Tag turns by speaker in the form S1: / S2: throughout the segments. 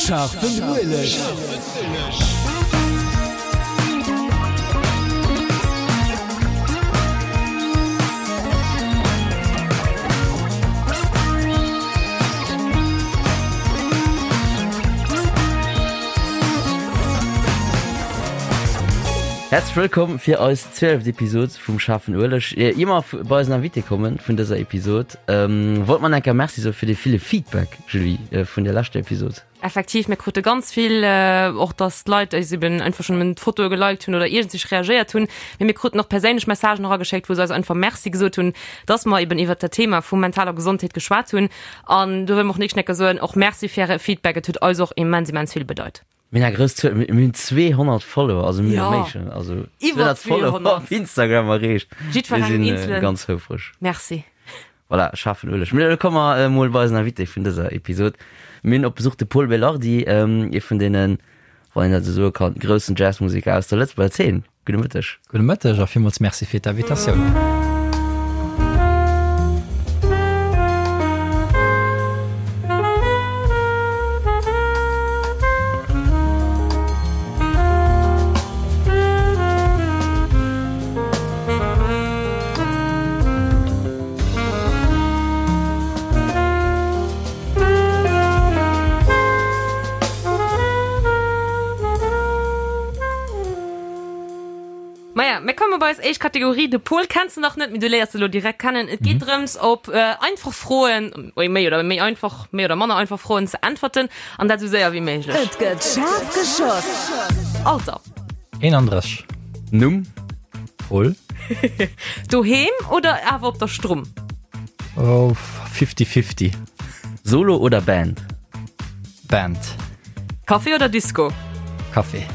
S1: Scharfen Ueleg.
S2: Häerzlech wëllkomm fir eis zwieleft Episod vum Schaarfen Ueleg. Ier mer bei eisen Invité kommen vun dëser Episod, wollt mer enker Merci soe fir dee ville Feedback, Julie, vun der leschter Episod.
S3: Effektiv, mir krute ganz vill, och dass d'Leit eis eben einfach schonn d'Fotoe geliked hunn oder iergendsich reagéiert hunn. Mee mir kruten och perséinlech Messagen erageschéckt, wou se eis einfach Merci gesot hunn, dass mer eben iwwert dat Thema vu mentaler Gesondheet geschwat hunn. An do wëlle mer och nächsten Enker soen, och Merci fir äre Feedback, et huet eis och immens, immens vill bedeit.
S2: Mir hunn eng grouss Zuel, mir hunn 200 Follower, also mir méi schonn, also
S3: iwwer
S2: 200 Follower op Instagram erreecht.
S3: Jiddwerengem
S2: eenzelen. Mir si ganz houfreg.
S3: Merci.
S2: Voilà, schaarfen Ueleg. Mee elo komme mer emol bei eisen Invité vun dëser Episod. Mir hunn op Besuch de Pol Belardi, ee vun deenen, wann een dat esou soe kann, groussen Jazzmuseker aus der Lëtzebuerger Zeen. Gudde Mëtteg.
S4: Gudde Mëtteg a villmools Merci fir d'Invitatioun.
S3: Maja, mir komme bei eis éischt Kategorie. De Pol kenns de nach net, mee du léiers e lo direkt kennen. Et geet drëms, op einfach Froen, méi oder méi einfach, méi oder manner einfach Froen ze äntwerten, an dat esou séier wéi méiglech.
S1: Et gëtt schaarf geschoss.
S3: Alter.
S4: 31.
S2: Numm.
S4: Pol.
S3: Doheem oder awer op der Strumm?
S4: Oh, fifty-fifty.
S2: Solo oder Band?
S4: Band.
S3: Café oder Disco?
S4: Café.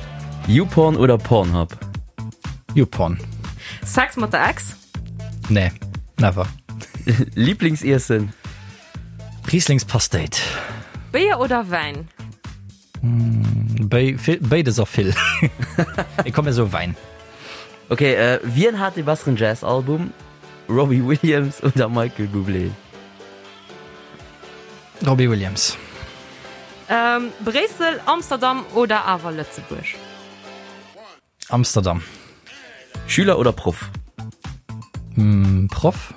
S2: YouPorn oder Pornhub?
S4: YouPorn.
S3: Sex mat der Ex?
S4: Nee, never.
S2: Lieblingsiessen?
S4: Rieslingspasteet.
S3: Béier oder Wäin?
S4: Béides a vill. Mee komm mir soe Wäin.
S2: Ok, wien hat dee besseren Jazz-Album, Robbie Williams oder Michael Bublé?
S4: Robbie Williams.
S3: Bréissel, Amsterdam oder awer Lëtzebuerg?
S4: Amsterdam.
S2: Schüler oder Proff?
S4: Proff.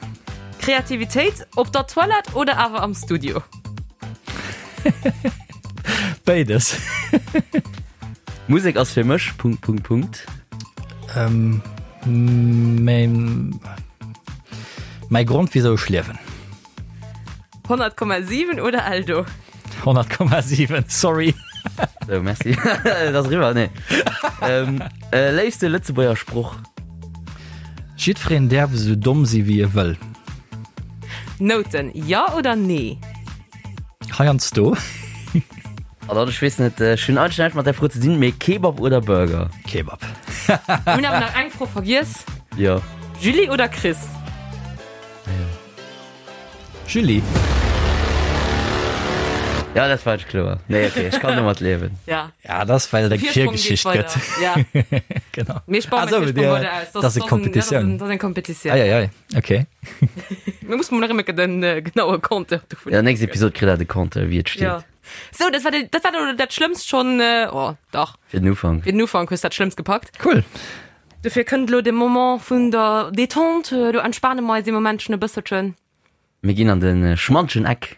S3: Kreativitéit op der Toilette oder awer am Studio?
S4: Béides.
S2: Musek ass fir mech Punkt Punkt Punkt.
S4: Mäi Grond wisou ech liewen.
S3: 100,7 oder Eldo?
S4: 100,7, sorry.
S2: So, merci. Dat ass eriwwer, nee. Ähm, äh, léifste Lëtzebuerger Sproch?
S4: Jiddwereen däerf esou domm si wéi e wëll.
S3: Nouten, jo oder nee?
S4: Heiansdo.
S2: An dann, ech weess net, ech hunn eigentlech näischt mat där Fro ze dinn, mee Kebab oder Burger?
S4: Kebab.
S3: Mir hunn awer nach eng Fro vergiess.
S2: Jo.
S3: Julie oder Chris?
S2: Ah jo.
S4: Julie.
S2: Ja, dat war kloer. Nee, okay, ech kann domat liewen.
S3: Ja.
S4: Ja, dat ass well et eng Virgeschicht gëtt.
S3: Ja.
S4: Genau.
S3: Mir spannen
S4: Ah, so, dir, dat ass eng Kompetitioun.
S3: Dat ass eng Kompetitioun.
S4: Ei, ei, ei. Okay.
S3: Mir mussen mol nach ëmmer den äh, genaue Compteur dovun.
S2: Ja, nächst Episod kritt der de Compteur, wéi et steet.
S3: Ja. So, dat war, de, dat war elo dat Schlëmmst schon. Äh, oh, dach.
S2: Fir den Ufank.
S3: Fir den Ufank hues dat Schlëmmst gepackt.
S4: Cool.
S3: Dofir kënnt elo de Moment vun der Détente. Do entspane mer eis ee Momentchen e bësselchen.
S2: Mir ginn an de schmantegen Eck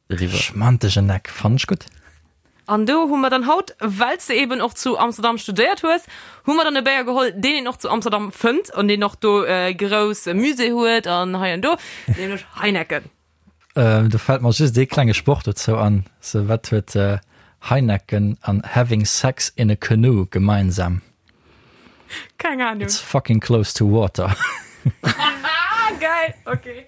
S2: eriwwer.
S4: Schmantegen Eck, fannen ech gutt.
S3: An do hu mer dann haut, well s de eben och zu Amsterdam studéiert hues, hu mer dann e Béier geholl, deen een och zu Amsterdam fënnt an deen och do e grousse Musée huet an hei an do, nämlech Heineken.
S4: Do fält mer just ee klenge Sproch dozou an, sou, Wat huet Heineken an having sex in a canoe gemeinsam?
S3: Keng Ahnung.
S4: It's fucking close to water.
S3: Geil, okay.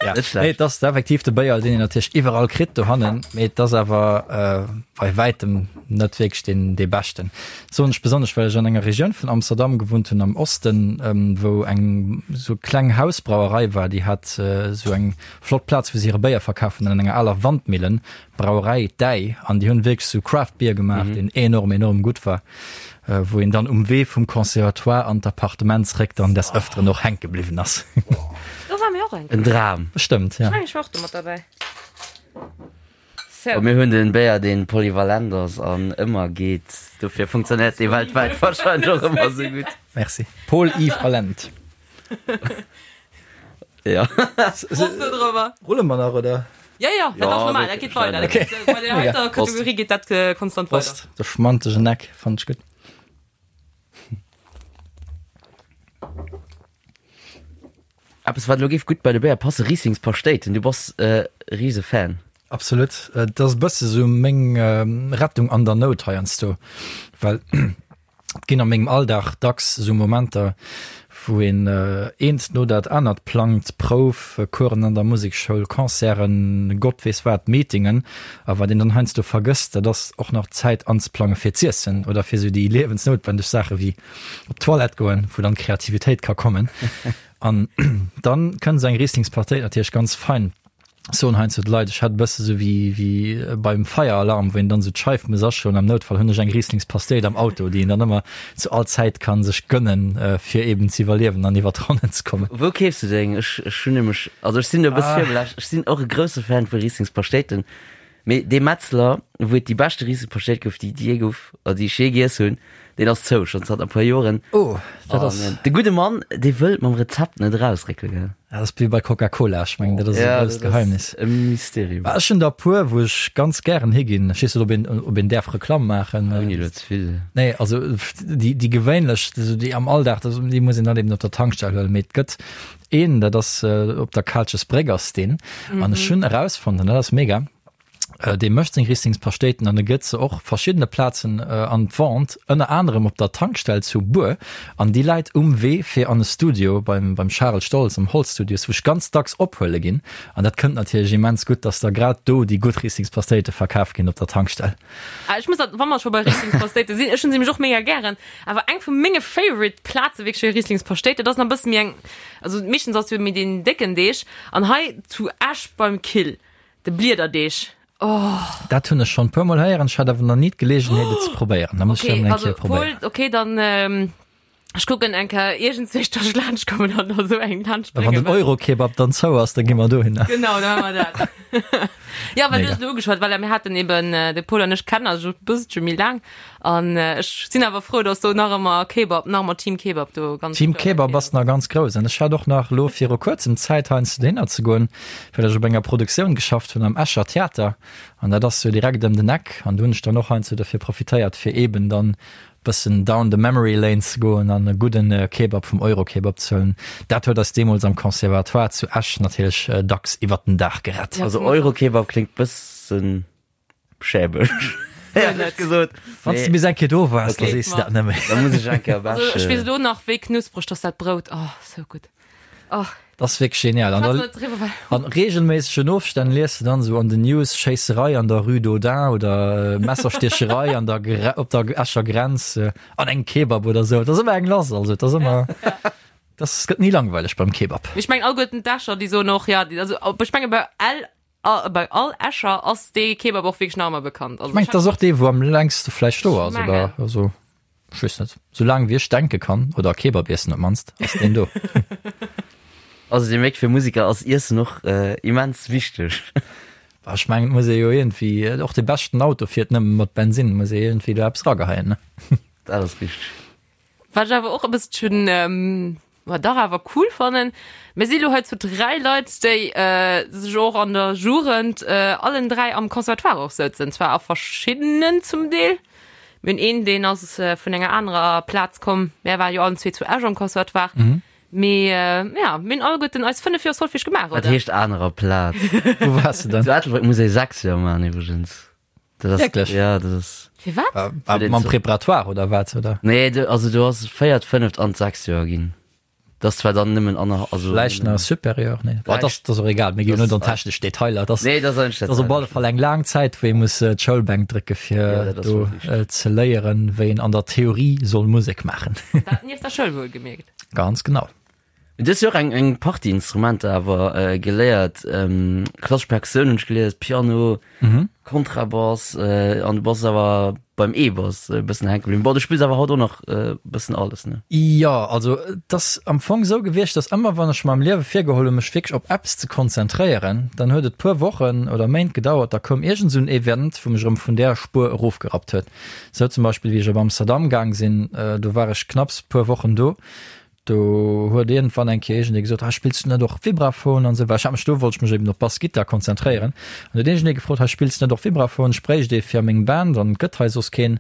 S4: Ja.
S2: Net schlecht.
S4: Nee, et ass effektiv de Béier, deen een natierlech iwwerall kritt dohannen, mee et ass awer äh, bei wäitem net wierklech deen dee beschten. Soen ech besonnesch, well ech an enger Regioun vun Amsterdam gewunnt hunn, am Osten, ähm, wou eng sou kleng Hausbrauerei war, déi hat äh, sou eng flott Plaz, wou se hire Béier verkaf hunn, an enger aler Wandmillen, Brauerei Däi, an déi hunn wierklech sou Craft Beer gemaach, deen enorm, enorm gutt war, wou een dann um Wee vum Conservatoire an d'Appartement zréck dann des Ëfteren och hänke bliwwen ass.
S3: Do ware mir och eng
S2: En
S3: Kéier.
S2: Dram.
S4: Bestëmmt, ja.
S3: Ech mengen, ech war och do mat derbäi.
S2: Bon, mir hunn den Béier deen polyvalent ass an ëmmer geet, dofir funktionéiert dee weltwäit wahrscheinlech och ëmmer sou gutt.
S4: Merci. Paul Yves Allende.
S2: Ja.
S3: Prost do drüber.
S4: Rulle mer nach, oder?
S3: Ja, ja, dat ass normal, dat geet weider.
S4: Okay.
S3: Bei der heiter Kategorie geet dat äh, konstant weider.
S4: Prost. De schmantegen Eck fand ech gutt.
S2: Eppes wat elo géif gutt bei de Béier passen, Rieslingspaschtéiten. Du bass e rise Fan.
S4: Absolut. Et ass e bësse sou meng Rettung an der Nout heiansdo, well et ginn a mengem Alldag dacks sou Momenter, wou een eent no dat anert plangt, Prouf, Coursen an der Musekschoul, Concerten, Gott weess wat, Meetingen. A wat een dann heiansdo vergësst, dat ass och nach Zäit anzeplange fir z'iessen oder fir sou déi liewensnoutwendeg Saache wéi op d'Toilette goen, wou dann d'Kreativitéit ka kommen. An dann kënnt esou eng Rieslingspartéit natierlech ganz fein. Soen heiansdo d'Leit, ech hätt e bësse sou wéi, wéi beim Feieralarm, wou een dann esou d'Scheif muss aschloen. Am Noutfall hunn ech eng Rieslingspasteet am Auto, déi een dann ëmmer zu all Zäit ka sech gënnen, fir eben z'iwwerliewen an iwwer d'Ronnen ze kommen.
S2: Wou keefs du deng? Ech, ech hunn nämlech, also ech sinn do e bësse virbelascht, ech sinn och e grousse Fan vu Rieslingspaschtéiten, Mee dee Metzler, wou et déi beschte Riesepaschtéit gouf, déi et jee gouf, oder déi ech jee giess hunn, deen ass zou, schonn zanter e puer Joren.
S4: Oh, dat ass.
S2: An de gudde Mann, dee wëllt mam Rezept net erausréckele, gell?
S4: Dat ass wéi bei Coca-Cola, ech mengen, dat ass e grousst Geheimnis.
S2: E Mysterium.
S4: Ech hunn der e puer, wou ech ganz gären higinn. Ech weess net, ob een, ob een däerf Reklamm maachen.
S2: Ouni elo ze vill.
S4: Nee, also déi, déi gewéinlech, déi am Alldag, déi muss een dann eben op der Tankstell huelen. Mee et gëtt Een, dat ass op der Kaalchesbréck ass deen. An ech hunn erausfonnt, an dat ass mega, dee mécht seng Rieslingspaschtéiten an e gëtt se och verschiddene Plazen an d'Vente, ënner anerem op der Tankstell zu Bur. An déi läit um Wee fir an e Studio beim, beim Charel Stoltz am Holzstudios, wou ech ganz dacks ophuele ginn. An dat kënnt natierlech immens gutt, dass da grad do déi gutt Rieslingspaschtéite verkaf ginn op der Tankstell.
S3: Ah, ech muss dat, wa mer scho bei Rieslingspaschtéite sinn, ech hunn se nämlech och mega gären. Awer eng vu menge favorite Plaze wierklech fir Rieslingspaschtéit, dat ass nach e bësse méi eng, also meeschtens ass jo méi deen décken Deeg, an hei zu Esch beim Kill, de Bliederdeeg, oh.
S4: Dat hunn ech schonn e puer mol héieren, ech hat awer nach ni d'Geleegenheet et ze probéieren. Da muss ech dat
S3: Okay,
S4: emol eng
S3: also
S4: Kéier probéieren.
S3: Paul, okay, dann ech kucken eng Kéier iergendswéi, dass ech laanscht kommen an der esou eng laanscht
S4: Wann den
S3: bréngen.
S4: Euro-Kebab dann zou ass, da gi mer dohinner.
S3: Genau, da maache mer dat. Ja, well du
S4: Mega.
S3: hues elo ugeschwat, voilà, mir haten eben, de Paul an ech kennen eis e bësselche méi laang an ech sinn awer frou, dass do nach ëmmer Kebab, nach ëmmer Team Kebab do ganz
S4: Team Kebab ass nach ganz grouss an ech hat och nach elo viru kuerzem Zäit heiansdo dohinner ze goen, well ech op enger Produktioun geschafft hunn am Escher Theater an dat ass jo direkt ëm den Eck an do hunn ech dann och heiansdo dofir profitéiert, fir eben dann Bëssen down the memory lane ze goen an e gudden Kebab vum Eurokebab ze huelen, dat huet eis deemools am Conservatoire zu Esch natierlech dacks iwwert den Dag gerett.
S2: Also Eurokebab kléngt bëssen schäbeg, éierlech gesot.
S4: Wann s de bis eng Kéier do waars, da sees de dat net méi.
S2: Da muss ech eng Kéier op Esch.
S3: Also ech weess elo nach wéi knuspreg dass dat Brout, oh sou gutt, oh.
S4: Dat ass wierklech genial. An da an reegelméissegen Ofstänn lies de dann esou an den News, Schéisserei an der Rue d'Audun oder Messerstiecherei an der op der Escher Grenz an engem Kebab oder esou. Et ass ëmmer eng lass, also et ass ëmmer, dat gëtt ni langweileg beim Kebab.
S3: Ech mengen alleguerten d'Escher déi soen och, ja, also ech menge bei L A bei all Escher ass dee Kebab och wierklech nach ëmmer bekannt.
S4: Ech mengen, et ass och dee, wou am längste vläicht do ass, oder? Also, ech weess net. Sou laang wéi ech denke kann, oder Kebab iessen op d'mannst, ass deen do.
S2: Also dir mierkt, fir Museker ass Iessen och immens wichteg.
S4: Bah, ech mengen, et muss ee jo iergendwéi, och de beschten Auto fiert nëmme mat Bensinn, muss ee iergendwéi do eppes rageheien, ne?
S2: Dat ass richteg.
S3: Wat ech awer och e bësselchen, ma dach awer cool fannen, mir si lo hei zu 3 Leit, déi sech och an der Jugend allen 3 am Conservatoire och souzen, zwar a verschiddenen zum Deel. Mir hunn een, deen ass vun enger anerer Plaz komm, mär ware jo allen zwee zu Esch am Conservatoire, mee ja, mir hunn alleguerten eis 5 Joer Solfège gemaach,
S2: Wat
S3: oder?
S2: heescht anerer Plaz?
S4: Wou waars de dann?
S2: Zu Ettelbréck muss ee 6 Joer maachen iwwregens. Dat ass,
S4: Wierklech?
S2: Ja, dat ass.
S3: Firwat?
S4: Äh, äh, mam Préparatoire oder wat oder?
S2: Nee, du, also du ass véiert, fënneft an d'sechst Joer ginn. Dat ass zwar dann nëmmen aner, also.
S4: Vläicht nach Supérieur, nee. Boah, das, das ass och egal, mir ginn net an technesch Detailer. Das,
S2: Nee, das ass
S4: das ass op alle Fall eng laang Zäit, wou ee muss äh, d'Schoulbänk drécke fir
S2: Ja, dat ass
S4: do
S2: wuel
S4: äh, ze léieren, wéi een an der Theorie soll Musek maachen.
S3: Dat nieft der Schoul wuel gemierkt.
S4: Ganz genau.
S2: Du hues jo och eng, eng Partie Instrumenter awer geléiert, klassesch Perkussioun hunn ech gelies, Piano, Kontrabass, an du bass awer. Beim E-Bass e bëssen hänke bliwwen. Bon, du spills awer haut och nach e bëssen alles, ne?
S4: Jo, also et ass am Fong esou gewiescht, dass ëmmer wann ech mer am Liewe virgeholl hunn, mech wierklech op eppes ze konzentréieren, dann huet et puer Wochen oder Méint gedauert, da koum iergend esou en Event, wou mech erëm vun där Spuer erofgerappt huet. Esou zum Beispill wéi ech op Amsterdam gaang sinn, do war ech knapps puer Wochen do, Do huet iergendwann eng Kéier iergendee gesot, Hei, spills du net och Vibraphon an esou? Well ech hat mech do, wollt ech mech eben op Bassgittar konzentréieren. An huet iergendee gefrot, Hei, spills du net och Vibraphon? Ech bréicht ee fir a meng Band an et gëtt hei soss keen.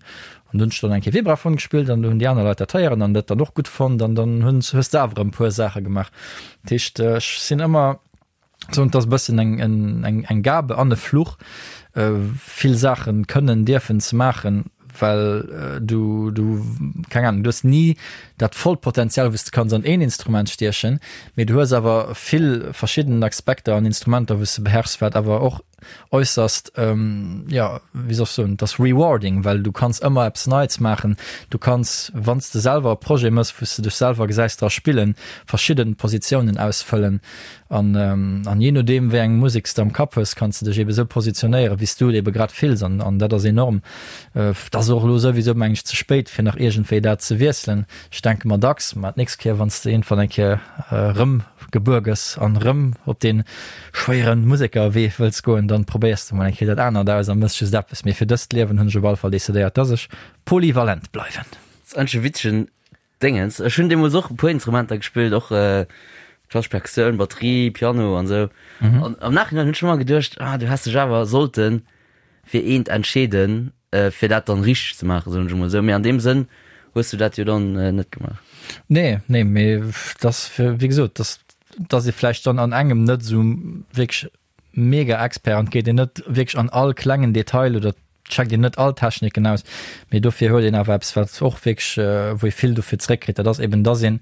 S4: An du hunn ech dann eng Kéier Vibraphon gespillt an do hunn déi aner Leit dat héieren an dat dann och gutt fonnt an dann hunn, hues de awer erëm e puer Saache gemaach. Dat heescht, ech sinn ëmmer. Soen, et ass e bëssen eng, eng, eng Gabe an e Fluch, vill Saache kënnen, dierfen ze maachen, well du, du, keng Ahnung, du hues ni dat vollt Potenzial, wou s de kanns an een Instrument stiechen, mee du hues awer vill verschidden Aspekter an Instrumenter, wou s de beherrschs, wat awer och äusserst, jo, wéi soll ech soen, et ass rewarding, well du kanns ëmmer eppes Neits maachen. Du kanns, wann s de selwer e Projet mëss, wou s de dech selwer gesäis dra spillen, verschidde Positiounen ausfëllen an, an jee nodeem, wéi eng Musek s de am Kapp hues, kanns de dech eebe sou positionéieren, wéi s du et eebe grad fills an, an dat ass enorm. Et ass och elo souwisou, meng ech, ze spéit, fir nach iergendwéi dat ze wiesselen. Ech denke mer dacks, ma d'nächst Kéier, wann s de iergendwann eng Kéier erëm gebuer gëss an erëm op dee schwéiere Musekerwee wëlls goen, dann probéiers de mol eng Kéier dat anert aus a mëss just eppes. Mee fir dëst Liewen hunn ech op alle Fall decidéiert, dass ech polyvalent bleiwen.
S2: Ass eigentlech e witzegen Déngens. Ech hunn deemools och e puer Instrumenter gespillt, och klassesch Perkussioun, Batterie, Piano an esou. An am Nachhinein hunn ech ëmmer geduecht, ah du häss dech awer sollte fir eent entscheeden, fir dat dann richteg ze maachen, soen ech emol esou. Mee an deem Sënn hues du dat jo dann net gemaach.
S4: Nee, nee, mee dass, wéi gesot, dass, dass ee vläicht dann an engem net esou wierklech mega Expert an et geet een net wierklech an all klengen Detail oder checkt een net all Techniken aus, mee dofir huet een awer eppes, wat och wierklech, wou ee vill dofir zeréckkritt, dat ass eben, dass ee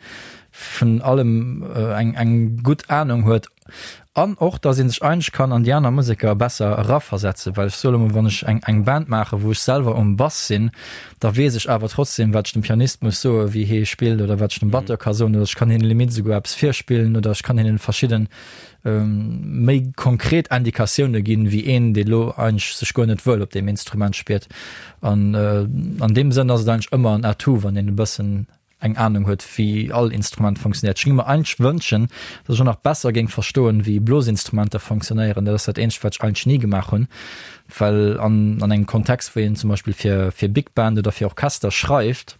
S4: vun allem eng, eng gutt Anung huet an och, dass ee sech eigentlech kann an déi aner Museker besser eraversetzen, well ech soe lo mol, wann ech eng, eng Band maachen, wou ech selwer um Bass sinn, da weess ech awer trotzdem, wat ech dem Pianist muss soen, wéi hee spillt oder wat ech dem Batteur ka soen oder ech kann hinnen limite esouguer eppes virspillen oder ech kann hinnen verschidden méi konkret Indikatioune ginn, wéi een, dee lo eigentlech sech guer net wuel op deem Instrument spiert. An an deem Sënn ass et eigentlech ëmmer en Atout, wann een e bëssen eng Anung huet, wéi all Instrument funktionéiert. Ech géing mer eigentlech wënschen, datt ech och nach besser géing verstoen, wéi Blosinstrumenter funktionéieren. Dat ass dat eenzegt, wat ech eigentlech ni gemaach hunn, well an an engem Kontext, wou een zum Beispill fir fir Big Band oder fir Orchester schreift,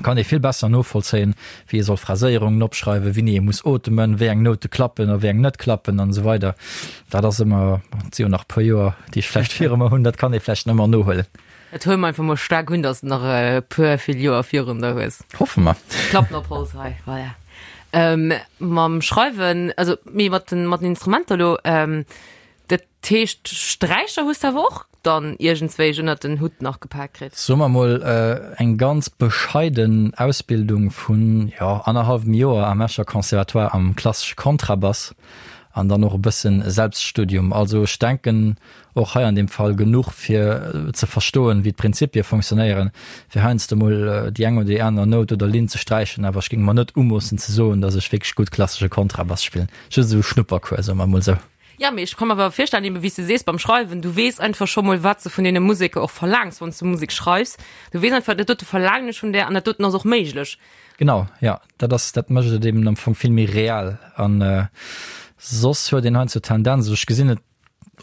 S4: kann ee vill besser novollzéien, wéi ee soll Phraséierungen opschreiwen, wéini ee muss otemen, wéi eng Noute klappen a wéi eng net klappen an esou weider. Dat ass ëmmer, et si jo nach e puer Joer, déi ech vläicht viru mer hunn, dat kann ee vläicht ëmmer nohuelen.
S3: Dat huele mer einfach mol staark un, dass de nach e puer vill Joer virun der hues.
S4: Hoffe mer.
S3: Klappen op Holz hei, voilà. Mam Schreiwen, also mee mat den, mat den Instrumenter elo, Dat heescht, Sträicher hues de awer och dann iergendswéi ënnert den Hutt nach gepak kritt?
S4: Soe mer mol, eng ganz bescheiden Ausbildung vun, jo, annerhallwem Joer am Escher Conservatoire am klassesche Kontrabass an dann och e bëssen Selbststudium. Also ech denken och hei an deem Fall genuch fir ze verstoen, wéi d'Prinzipie fonctionnéieren, fir heiansdo mol déi eng oder déi aner Nout oder Linn ze sträichen. Awer ech géing mer net umoossen ze soen, datt ech wierklech gutt klassesche Kontrabass spillen. Just esou e Schnuppercours, soe mer mol esou.
S3: Ja, mee ech ka mer awer virstellen, eben wéi s de sees beim Schreiwen, du weess einfach scho mol, wat s de vun deene Museker och verlaangs, wann s du Musek schreifs. Du weess einfach, dat dote verlaangen ech vun där an dat doten ass och méiglech.
S4: Genau, ja, dat ass, dat mécht et eben am Fong vill méi real. An soss huet een heiansdo d'Tendenz, also ech gesinn et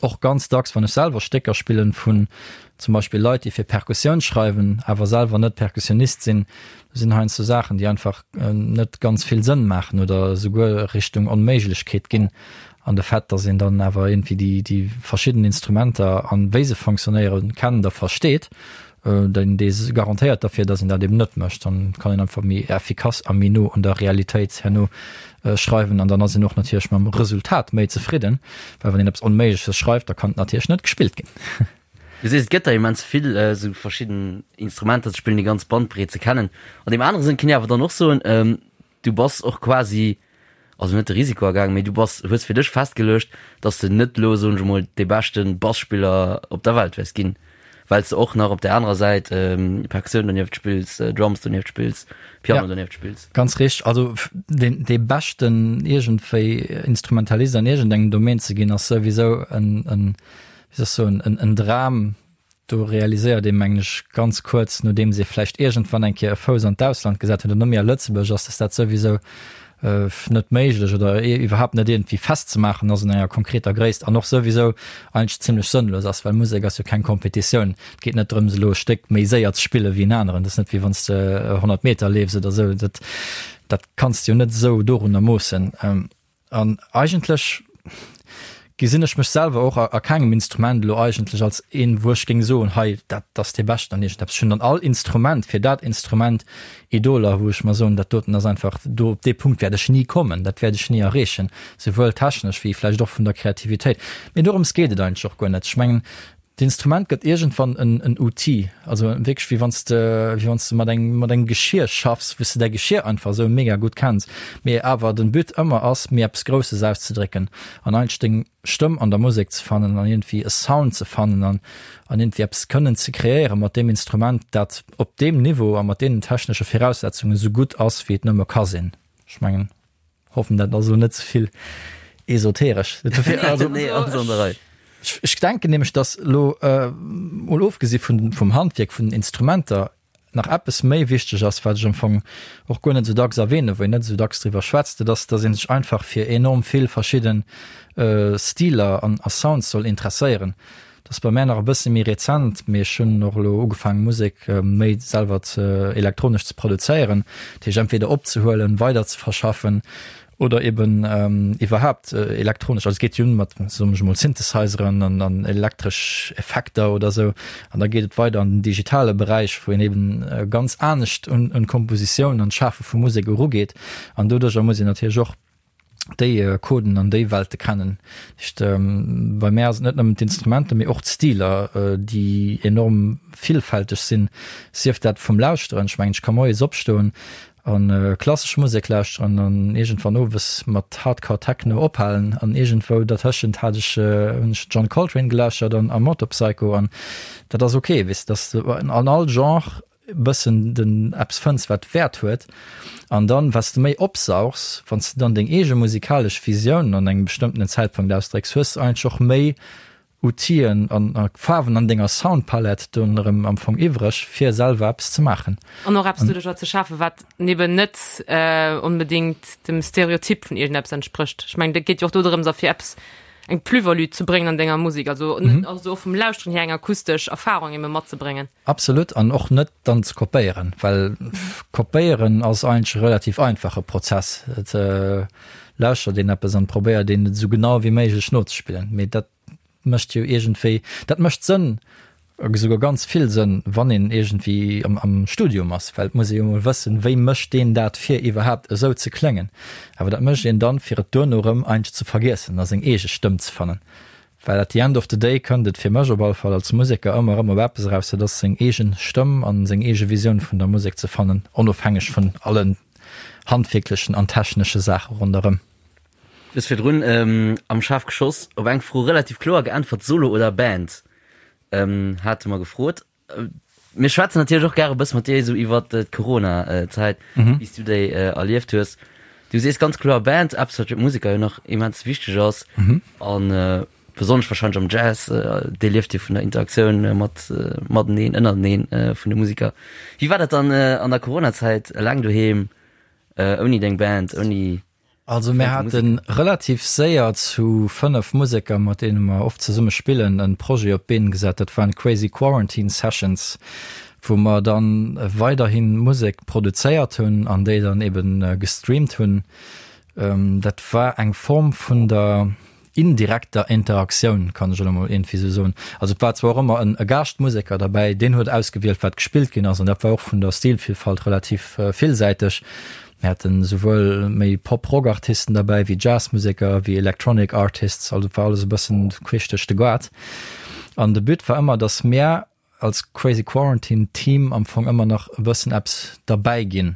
S4: och ganz dacks, wann ech selwer Stécker spillen vun zum Beispill Leit, déi fir Perkussioun schreiwen, awer selwer net Perkussionist sinn, do sinn heiansdo Saachen, déi einfach net ganz vill Sënn maachen oder esouguer Richtung Onméiglechkeet ginn. An de Fait, dass een dann awer iergendwéi déi, déi verschidden Instrumenter an wéi se fonctionnéieren, kennt a versteet, deen, dee garantéiert derfir, dass een dat eben net mécht. Dann kann een einfach méi effikass a méi no un der Realitéit herno schreiwen an dann ass een och natierlech mam Resultat méi zefridden, well wann een eppes Onméigleches schreift, da kann et natierlech net gespillt ginn.
S2: Du sees, et gëtt der immens vill esou verschidden Instrumenter ze spillen, déi ganz Bandbreet ze kennen. An deem anere Sënn kann ee awer dann och soen, du bass och quasi, also net de Risiko agaangen, mee du bass, hues fir dech festgeluecht, dass de net elo, soen ech emol, dee beschte Basspiller op der Welt wäers ginn, well s de och nach op där anerer Säit Perkussioun donieft spills, Drums donieft spills, Piano donieft spills.
S4: Ganz richteg. Also deen, dee beschten iergendwéi Instrumentalist an iergendengem Domaine ze ginn, ass souwisou en, en, wéi soll ech soen, en, en Dram. Do realiséiert ee mengen ech ganz kuerz, nodeems ee vläicht iergendwann eng Kéier e Fouss an d'Ausland gesat huet an net méi a Lëtzebuerg ass, dass dat souwisou net méiglech oder iwwerhaapt net iergendwéi festzemaachen ass un enger konkreter Gréisst an och souwisou eigentlech zimlech sënnlos ass, well Musek ass jo keng Kompetitioun. Et geet net drëms elo e Stéck méi séier ze spille wéi en aneren. Dat ass net wéi wann s de 100 Meter leefs oder esou. Dat dat kanns de jo net esou dorunner moossen. An eigentlech gesinn ech mech selwer och a kengem Instrument elo eigentlech als een, wou ech géing soen, hei dat ass dee Beschten an iergendeppes. Ech hunn an all Instrument fir dat Instrument Idoler, wou ech mer soen, dat doten ass einfach, do op dee Punkt wäert ech ni kommen, dat wäert ech ni erreechen, souwuel technesch wéi vläicht och vun der Kreativitéit. Mee dorëms geet et eigentlech och guer net. Ech mengen, D'Instrument gëtt iergendwann en en Outil, also wierklech wéi wann s de wéi wann s de mat engem mat engem Geschier schaffs, wou s de däi Geschier einfach esou mega gutt kenns, mee awer den But ëmmer ass, méi eppes Grousses auszedrécken an eigentlech deng Stëmm an der Musek ze fannen an iergendwéi e Sound ze fannen an an iergendwéi eppes kënnen ze kreéieren mat deem Instrument, dat op deem Niveau a mat deenen technesche Viraussetzungen esou gutt ass, wéi et nëmme ka sinn. Ech mengen. Hoffen dat ass elo net ze vill esoteresch. Also, nee, alles an der Rei. Ech, ech denken nämlech, dass elo äh, mol ofgesi vun, vum Handwierk, vun den Instrumenter, nach eppes méi wichteg ass, wat ech am Fong och guer net esou dacks erwähnen, wou een net esou dacks driwwer schwätzt, dat ass, dass ee sech einfach fir enorm vill verschidden äh, Stiler an, a Sounds soll interesséieren. Dat ass bei mär nach e bësse méi rezent, mee ech hunn och elo ugefaangen, Musek méi selwer ze elektronesch ze produzéieren, dat heescht entweder opzehuelen, weider ze verschaffen oder eben iwwerhaapt elektronesch. Also et geet jo un mat, soen ech emol, Synthesizeren an an elektresch Effekter oder esou an da geet et weider an den digitale Beräich, wou een eben ganz anescht un un d'Kompositioun an d'Schafe vu Musek erugeet an doduercher muss een natierlech och déi Coden an déi Welte kennen. Dat heescht, bei mär ass et net nëmmen d'Instrumenter, mee och d'Stiler, déi enorm villfälteg sinn, sief dat vum Lauschteren, ech mengen, ech ka moies opstoen a klassesch Musek lauschteren an iergendwann owes mat Hardcore Techno ophalen an iergendwou dertëschent hat ech, hunn ech John Coltrane gelauschtert an a Motorpsycho an dat ass ok, weess de, dass an all Genre bëssen den eppes fënns wat Wäert huet an dann wat s de méi opsaugs, wann s de dann deng eege musikalesch Visioun an engem bestëmmtenen Zäitpunkt ausdrécks, hues de eigentlech och méi Outill'en an Faarwen an denger Soundpalette dunn erëm am Fong iwwreg fir selwer eppes ze maachen.
S3: An och eppes doduercher ze schafen, wat eben net onbedéngt dem Stereotyp vun iergendeppes entsprécht. Ech mengen, dat geet jo och do drëms a fir eppes eng Plus-value ze bréngen an denger Musek, also also och vum Lauschteren hier eng akustesch Erfarung ebe matzebréngen.
S4: Absolut, an och net dann ze kopéieren, well kopéieren ass eigentlech e relativ einfache Prozess. Et lauschtert een eppes an probéiert een et esou genau wéi méiglech nozespillen, mee dat mécht jo iergendwéi, dat mécht Sënn, esouguer ganz vill Sënn, wann een iergendwéi am am Studium ass, well et muss ee jo emol wëssen, wéi mécht deen dat fir iwwerhaapt esou ze kléngen. Awer dat mécht een dann, fir et duerno erëm eigentlech ze vergiessen a seng eege Stëmm ze fannen. Well at the end of the day kënnt et fir mech op alle Fall als Museker ëmmer erëm op eppes eraus, dat ass seng eegen Stëmm an seng eege Visioun vun der Musek ze fannen, onofhängeg vun allen handwierklechen an technesche Saache ronderëm.
S2: Du hues virdrun am Schaarf geschoss op eng Fro relativ kloer geäntwert, Solo oder Band hate mer gefrot. Mir schwätzen natierlech och gäre e bësse mat dir esou iwwert d'Corona-Zäit, wéi s du déi erlieft hues. Du sees ganz kloer Band, eppes wat fir d'Museker jo nach immens wichteg ass an besonnesch warscheinlech am Jazz, dee lieft jo vun der Interaktioun mat mateneen, ënnerteneen vun de Museker. Wéi war dat dann an der Corona-Zäit, eleng doheem, ouni deng Band, ouni
S4: Also mir hate relativ séier zu 5 Museker, mat deene mer oft zesumme spillen, e Projet op d'Been gesat. Dat waren d'Crazy Quarantine Sessions, wou mer dann weiderhi Musek produzéiert hunn an déi dann eben gestreamt hunn. Dat war eng Form vun der indirekter Interaktioun, kann ech elo mol iergendwéi esou soen. Also et war zwar och ëmmer en e Gaaschtmuseker derbäi, deen huet ausgewielt, wat gespillt ginn ass, an dat war och vun der Stilvillfalt relativ villsäiteg. Mir haten esouwuel méi Pop-Rock-Artisten derbäi, wéi Jazzmuseker, wéi Electronic Artists, also et war alles e bëssen queesch duerch de Gaart. An de But war ëmmer, datt mär als Crazy Quarantine Team am Fong ëmmer nach e bëssen eppes derbäi ginn.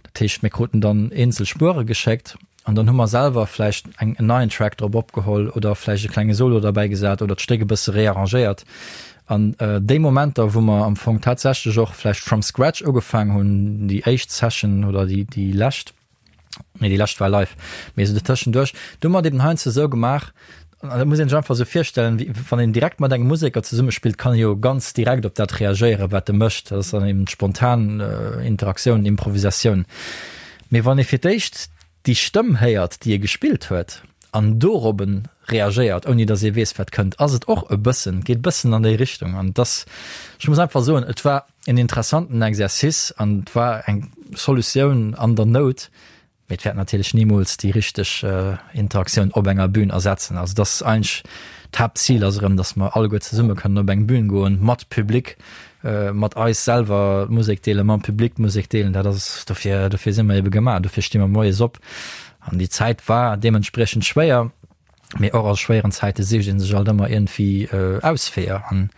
S4: Dat heescht, mir kruten dann eenzel Spuere geschéckt an dann hu mer selwer vläicht eng en neien Track drop opgeholl oder vläicht e klenge Solo derbäi gesat oder d'Stéck e bësse rearrangéiert. An déi Momenter, wou mer am Fong tatsächlech och vläicht from scratch ugefaang hunn, déi éischt Session oder déi déi lescht, Nee, déi lescht war live. Mee esou dertëschenduerch, do hu mer et eben heiansdo esou gemaach. An dat muss een sech einfach esou virstellen, wéi wann een direkt mat engem Museker zesummespillt, kann e jo ganz direkt op dat reagéieren, wat e mécht. Dat ass dann eben spontan Interaktioun, Improvisatioun. Mee wann ee fir d'éischt déi Stëmm héiert, déi ee gespillt huet, an dorobben reagéiert, ouni datt ee weess, wat kënnt, ass et och e bëssen, geet e bëssen an déi Richtung. An et ass, ech muss einfach soen, et war en interessanten Exercice an et war eng Solutioun an der Nout, Mee et wäert natierlech nimools déi richteg Interaktioun op enger Bühn ersetzen. Also dass eigentlech d'Haaptzil ass erëm, dass mer alleguer zesumme kënnen op eng Bühn goen, mat Public, mat eis selwer d'Musek deelen, mam Public d'Musek deelen. Dat ass, dofir, dofir si mer ebe gemaach, dofir sti mer moies op. An déi Zäit war deementspriechend schwéier. Mee och a schwéieren Zäite sicht ee sech alt ëmmer iergendwéi Ausweeër. An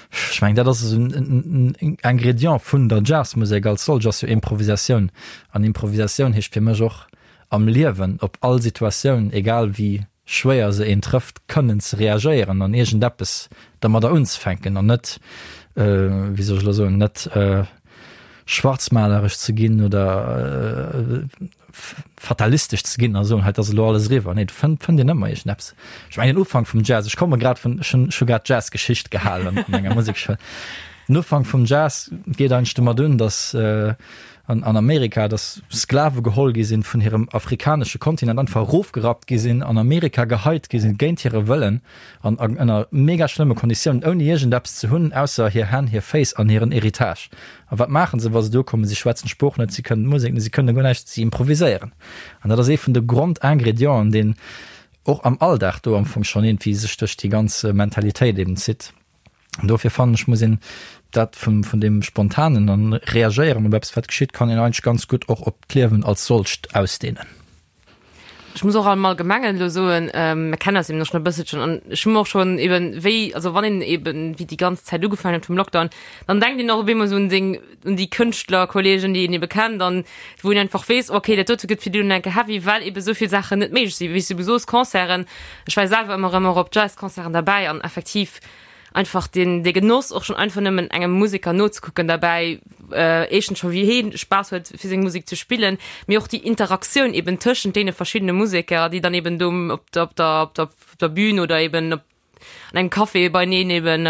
S4: ech mengen, dat ass esou en Ingrédient vun der Jazzmusek als solch, ass jo Improvisatioun. An Improvisatioun heescht fir mech och am Liewen op all Situatioun, egal wéi schwéier se een trëfft, kënnen ze reagéieren an iergendeppes dermadder unzefänken an net, wéi soll ech elo soen, net schwarzmaleresch ze ginn oder fatalistesch ze ginn a soen, hei, et ass elo alles eriwwer. Nee, do fënnt, fënnt een ëmmer iergendeppes. Ech mengen, den Ufank vum Jazz, ech komme grad vun, ech hunn, ech hu grad Jazzgeschicht gehalen an enger Musekschoul. Den Ufank vum Jazz geet eigentlech domat un, datt an, an Amerika, datt Sklave geholl gi sinn vun hirem afrikanesche Kontinent, einfach erofgerappt gi sinn, an Amerika geheit gi sinn, géint hire Wëllen an ënner mega schlëmme Konditiounen, ouni iergendeppes ze hunn, ausser hir Hänn, hir Féiss an hiren Héritage. A wat maachen se, wa se do ukommen? Si schwätzen d'Sprooch net, si kënnen d'Musek net, si kënnen guer näischt, si improviséieren. An dat ass ee vun de Grondingredienten, deen och am Alldag do am Fong schonn iergendwéi sech duerch déi ganz Mentalitéit eben zitt. An dofir fannen ech, muss een dat vum, vun deem Spontanen an Reagéieren op eppes, wat geschitt, kann een eigentlech ganz gutt och op d'Liewen als solcht ausdehnen.
S3: Ech muss och am Allgemengen elo soen, mir kennen eis eben och schon e bësselchen an ech hu mer och schon eben wéi, also wann een eben wéi déi ganz Zäit ugefaangen huet vum Lockdown, dann denkt een och op eemol esou un seng, un déi Kënschtlerkollegen, déi een ebe kennt an wou een einfach weess, okay, dat dote gëtt fir déi elo enke heavy, well ebe esou vill Saachen net méiglech sinn. Wéi s du ebe soos, Concerten, ech war selwer ëmmer erëm och op Jazzconcerten derbäi an effektiv, einfach den de Genoss och schon einfach nëmmen engem Musiker nozekucken derbäi, éischtens scho wéi heen Spaass huet fir seng Musek ze spillen, mee och déi Interaktioun eben tëschent deene verschiddene Museker, déi dann eben do op der op der op der op der Bühn oder eben op an engem Café beineen eben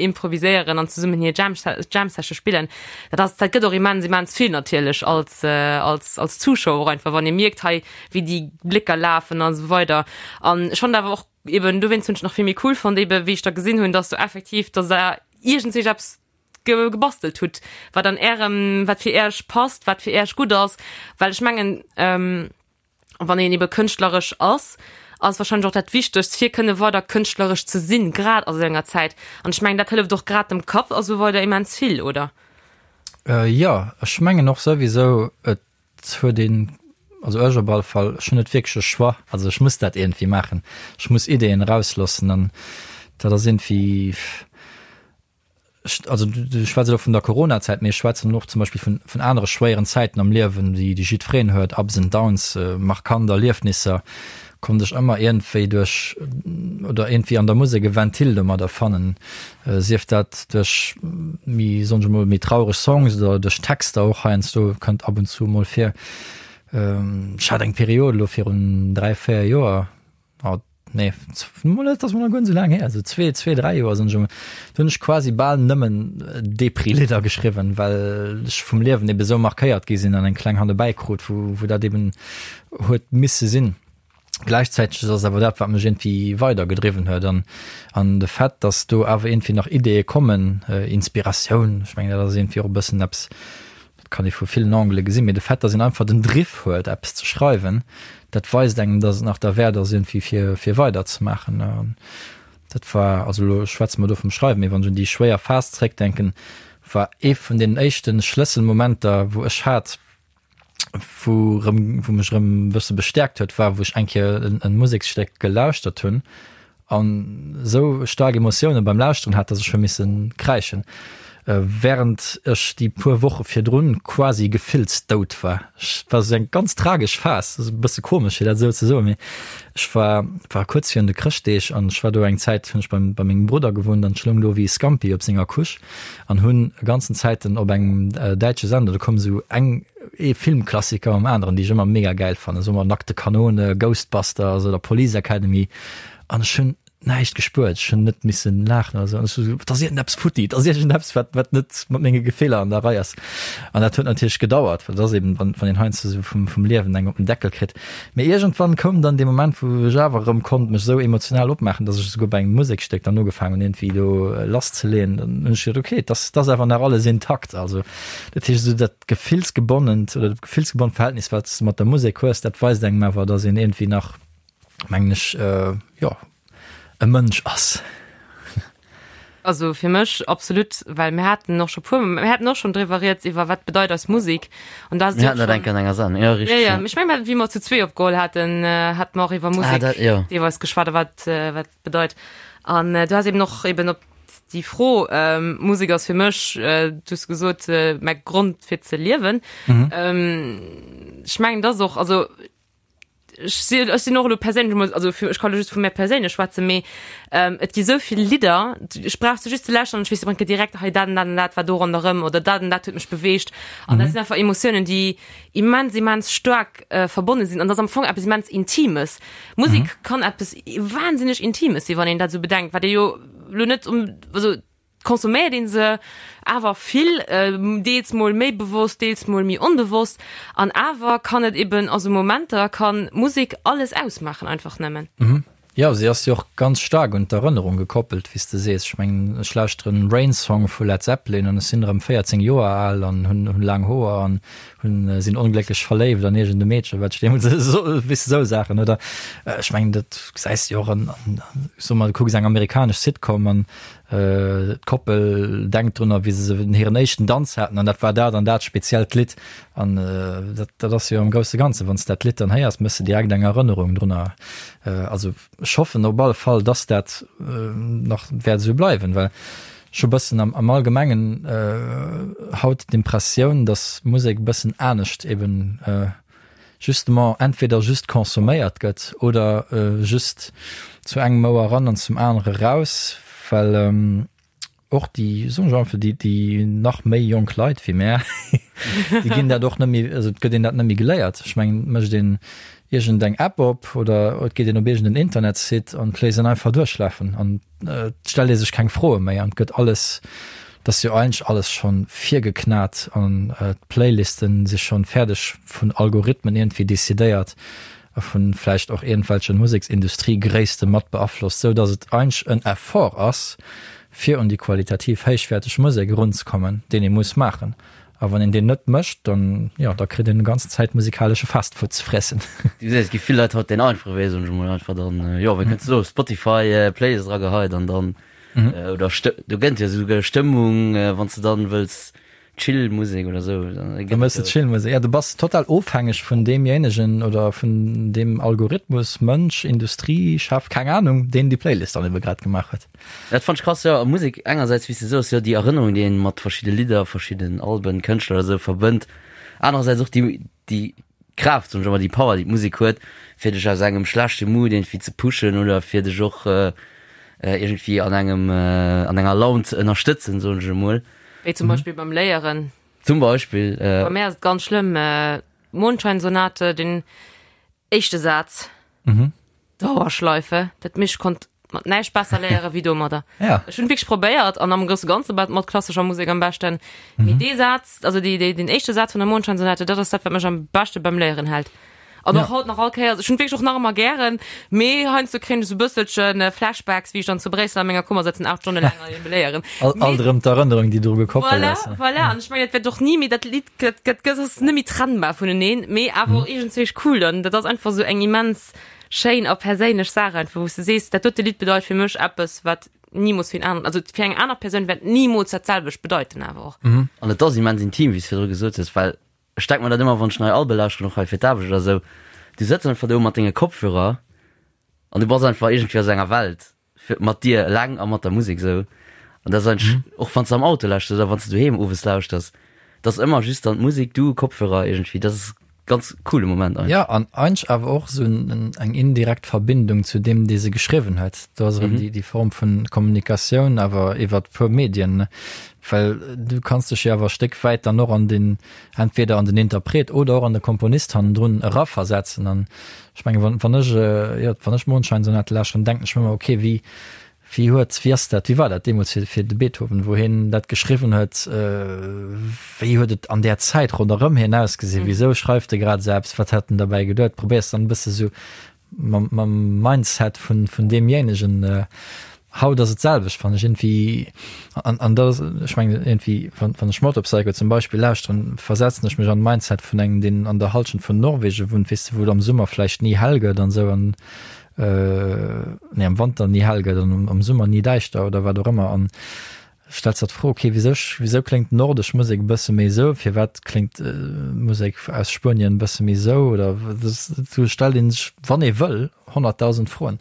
S3: improviséieren an zesummen hir Jam Jam Session spillen. Dat ass dat gëtt och immens immens vill natierlech als als als Zuschauer och einfach wann ee mierkt hei wéi déi Blécker lafen a sou weider an ech fand awer och eben dowéinst hunn ech nach vill méi cool fonnt eben wéi ech da gesinn hunn dass do effektiv dass der iergendsich eppes ge gebastelt hutt wat an ärem wat fir äerch passt wat fir äerch gutt ass well ech mengen ähm, wann een ebe kënschtleresch ass ass wahrscheinlech och dat wichtegst fir kënne weider kënschtleresch ze sinn grad a sou enger Zäit an ech mengen dat hëlleft och grad dem Kapp a sou weider immens vill oder?
S4: Äh, jo ech mengen och souwisou et Et huet een, also ech op alle Fall, ech hunn net wierklech e Choix. Also ech muss dat iergendwéi maachen. Ech muss Ideeën erausloossen an dat ass iergendwéi, ech, also du schwätz elo vun der Coronazäit, mee ech schwätzen och zum Beispill vun, vun anere schwéieren Zäiten am Liewen, déi, déi jiddwereen huet, Ups and Downs, markant Erliefnisser, konnt ech ëmmer iergendwéi duerch oder iergendwéi an der Musek e Ventil domadder fannen, sief dat duerch méi, soen ech emol, méi traureg Songs oder duerch Texter och heiansdo, kënnt ab und zu emol vir. Ech hat eng Period elo virun 3, 4 Joer, oh nee, mol net, ass mol nach guer net esou laang hier, esou zwee, zwee, dräi Joer soen ech emol, do hunn ech quasi bal nëmmen Depri-Lidder geschriwwen, well ech vum Liewen ebe sou markéiert gi sinn an eng kleng Handebäi krut, wou, wou dat eben huet misse sinn. Gläichzäiteg ass awer dat, wat mech iergendwéi weidergedriwwen huet an an de Fait, datt do awer iergendwéi nach Ideeë kommen, Inspiratioun, ech mengen dat ass iergendwéi och e bëssen eppes, dat kann ee vu villen Angele gesinn, mee de Fait, datt een einfach den Driff huet eppes ze schreiwen, dat weist engem, datt et nach derwäert ass iergendwéi fir fir weiderzemaachen. An dat war, also elo schwätze mer do vum Schreiwen, mee wann ech un déi schwéier Phas zeréckdenken, war ee vun deenen éischte Schlësselmomenter, wou ech hat, wou rëm, wou mech rëm e bësse bestäerkt huet, war wou ech eng Kéier en, en Museksstéck gelauschtert hunn an esou staark Emotioune beim Lauschteren hat, dass ech hu misse kräischen, während ech déi puer Woche virdrun quasi gefillsdout war. Ech war esou eng ganz tragesch Phas, ass e bësse komesch fir dat esou ze soen, mee ech war, war kuerz virun de Chrëschtdeeg an ech war do eng Zäit, hunn ech beim, bei mengem Brudder gewunnt an ech loung do wéi e Scampi op senger Couche an hunn ganzen Zäiten op engem däitsche Sender, do koum esou eng ee Filmklassiker um aneren, déi ech ëmmer mega gäil fannen, soe mer Nackte Kanone, Ghostbusters oder Police Academy. An ech hunn näischt gespuert, ech hunn net missen laachen oder sou. An ech sou, et ass iergendeppes futti, et ass iergendeppes, wat, wat net mat menge Gefiller an der Rei ass. An dat huet natierlech gedauert, well et ass eben, wann, wann een heiansdo sou vum, vum Liewen eng op den Deckel kritt. Mee iergendwann koum dann dee Moment, wou ech awer erëm konnt mech sou emotional opmaachen, dass ech esouguer bei engem Musekstéck dann ugefaangen hunn, iergendwéi do lasszeleeën. Dann hunn ech geduet, okay, et ass, et ass awer nach alles intakt. Also dat heescht, esou dat gefillsgebonnent oder dat gefillsgebonnt Verhältnis, wat s de mat der Musek hues, dat weist engem awer, dass een iergendwéi nach, mengen ech, jo, e Mënsch ass.
S3: Also fir mech absolut, well mir haten och scho puer, mir haten och schon driwwer rieds iwwer wat bedeit eis Musik an da
S2: Mir haten dat eng Kéier an enger Sendung, jo
S3: richteg. Ja, ja, ech meng wéi mer zu zwee opgeholl haten, hate mer och iwwer Musek
S2: ah, dat, jo.
S3: deelweis geschwat a wat wat bedeit. An du has eben och eben op déi Fro, Musek ass fir mech, du hues gesot, mäi Grond fir ze liewen. Ech mengen dat ass och, also ech sinn, ech sinn och elo perséinlech emol, also fir, ech kann elo just vu mär perséinlech schwätzen, mee ähm, et gi sou vill Lidder, ech brauch se just ze lauschteren an ech weess direkt direkt, hei dat an dat an dat war do ronderëm oder dat an dat huet mech beweegt. An dat sinn einfach Emotiounen, déi immens, immens staark äh, verbonne sinn. An dat ass am Fong eppes immens Intimes. Musek kann eppes wahnsinneg Intimes sinn, wann een dat esou bedenkt, wat ee jo elo net um, also Consomméiert een se awer vill, deels mol méi bewosst, deels mol méi onbewosst. An awer kann et eben a sou Momenter kann Musek alles ausmaachen, einfach nëmmen.
S4: Jo, si ass jo och ganz staark un d'Erënnerung gekoppelt, wéi s de sees. Ech mengen, ech lauschteren Rain Song vu Led Zeppelin an ech sinn erëm 14 Joer al an hunn hunn laang Hoer an hunn sinn onglécklech verléift an iergend e Meedchen, wat ech deemools esou, weess de, sou Saachen, oder? Ech mengen, dat gesäis de jo och an, an, soe mer, du kucks eng amerikanesch Sitcom an D'Koppel denkt drun, wéi se hiren éischten Danz haten, an dat war dat an dat speziellt Lidd. An dat, dat ass jo am grousse Ganzen, wann s de dat Lidd dann héiers, méchs de direkt eng Erënnerung drunner. Also ech hoffen op alle Fall, dass dat nach wäert esou bleiwen, well ech hu bëssen am, am Allgemengen haut d'Impressioun, dass Musek e bëssen anescht eben justement entweder just consomméiert gëtt oder just zu engem Ouer eran an zum anere raus, well och déi, soen ech einfach, déi, déi nach méi jonk Leit wéi mär, déi ginn dat och net méi, also et gëtt een dat net méi geléiert. Ech mengen, et mécht een iergend eng App op oder et geet een op iergend en Internetsite an et léisst een einfach duerchlafen an Et stellt ee sech keng Froe méi an et gëtt alles, et ass jo eigentlech alles schonn virgeknat an d'Playlisten si schonn fäerdeg vun Algorithmen iergendwéi decidéiert a vun vläicht och iergendwelche Museksindustriegréisste mat beaflosst, sou datt et eigentlech en Effort ass, fir un déi qualitativ héichwäerteg Musek erunzekommen, deen ee muss maachen. A wann een deen net mécht, dann, jo, da kritt een déi ganzen Zäit musikalesche Fastfood ze friessen.
S2: Du gesäis, et gi vill Leit haut deen einfache Wee, soen ech emol, einfach dann, jo, wéi kënns de soen, Spotify Playlist erageheit an dann, oder Stë-, do gëtt jo esouguer Stëmmung, wann s de dann wëlls Chill Musek oder esou,
S4: dann gëtt et jo. Da méchs de Chill Musek, ja, du bass total ofhängeg vun deemjéinegen oder vun deem Algorithmus, Mënsch, Industrie, Chef, keng Anung, deen déi Playlist dann ebe grad gemaach huet.
S2: Dat fannt ech krass, jo. A Musek engersäits, wéi s de soos, jo, déi Erënnerung, déi een mat verschidde Lidder, verschidden Alben, Kënschtler oder sou verbënnt. Anerersäits och déi, déi Kraaft, soen ech ëmmer, déi Power, déi d'Musek huet, fir dech aus engem schlechte Mood iergendwéi ze pushen oder fir dech och iergendwéi an engem, an enger Laun ze ënnerstëtzen, soen ech emol.
S3: Wéi zum Beispill beim Léieren.
S2: Zum Beispill.
S3: Bei mär ass et ganz schlëmm, Mondscheinsonate, den éischte Saz. Dauerschleife, dat mich konnt mat näischt besser léiere wéi domadder.
S4: Ja.
S3: Ech hunn wierklech probéiert an am grousse Ganze mat mat klassescher Musek am beschten. Mee dee Saz, also déi, déi, den éischte Saz vun der Mondscheinsonate, dat ass dat, wat mech am beschte beim Léieren hält. An och
S4: Ja.
S3: haut nach all Kéiers, ech hunn wierklech och nach ëmmer gären, mee heiansdo kréien ech esou bësselchen Flashbacks, wéi ech dann zu Bréissel a menger Kummer sëtzen, 8 Stonne laang an eben léieren.
S4: Alt, alt erëm d'Erënnerung, déi dru gekoppelt
S3: Voilà,
S4: ass.
S3: voilà. An ech mengen, dat wäert och ni méi, dat Lidd gëtt, gëtt, gëtt ass net méi trennbar vuneneen, mee awer och iergendzwéi cool. An dat ass einfach esou eng immens schéin a perséinlech Saach einfach, wou s de sees, dat dote Lidd bedeit fir mech eppes, wat nimools fir en aneren, also fir eng aner Persoun wäert nimools dat selwecht bedeiten awer och.
S2: An et ass immens intim, wéi s virdru gesot hues, well ech denk mer dat ëmmer, wann ech nei Albe lauschteren, och hei fir d'Aarbecht oder esou, du sëtz einfach do mat denge Kopfhörer an du bass einfach iergendwéi a sou enger Welt fir mat dir eleng a mat der Musek esou. An dat ass eigentlech, och wann s de am Auto lauschters oder wann s de doheem owes lauschters, et ass ëmmer just dann d'Musek, du, Kopfhörer iergendwéi, dat ass. Ganz coole Moment
S4: eigentlech. Jo, an eigentlech awer och esou eng indirekt Verbindung zu deem, dee se geschriwwen huet. Do ass erëm déi Form vun Kommunikatioun, awer iwwert puer Medien, well du kanns dech jo awer e Stéck wäit dann och an den, entweder an den Interpret oder och an de Komponist hannendrun eraversetzen. An ech mengen, wann, wann ech, jo, wann ech Mondscheinsonate lauschteren, denken ech mir ëmmer, okay, wéi, Wéi huet, wéi ass dat, wéi war dat deemools fir, fir de Beethoven, wou hien dat geschriwwen huet? Wéi huet et an där Zäit ronderëm hien ausgesinn? Wisou schreift e grad esou eppes? Wat hat en derbäi geduet? Probéiers dann e bësse sou mam, mam Mindset vun, vun deemjéinegen. Haut ass et d'selwecht, fannen ech iergendwéi. An, an dat ass, ech mengen iergendwéi, wann, wann ech Motorpsycho zum Beispill lauschteren, versetzen ech mech an d'Mindset vun engem, deen an der Hallschent vun Norwegen wunnt, weess de, wou et am Summer vläicht ni hell gëtt an esou an, nee, am Wanter ni hell gëtt an am Summer ni däischter oder wat och ëmmer an stells der d'Fro, okay, wisou, wisou kléngt nordesch Musek e bësse méi esou, firwat kléngt Musek aus Spuenien e bësse méi esou oder do stellt ee sech, wann ee wëll, 100.000 Froen.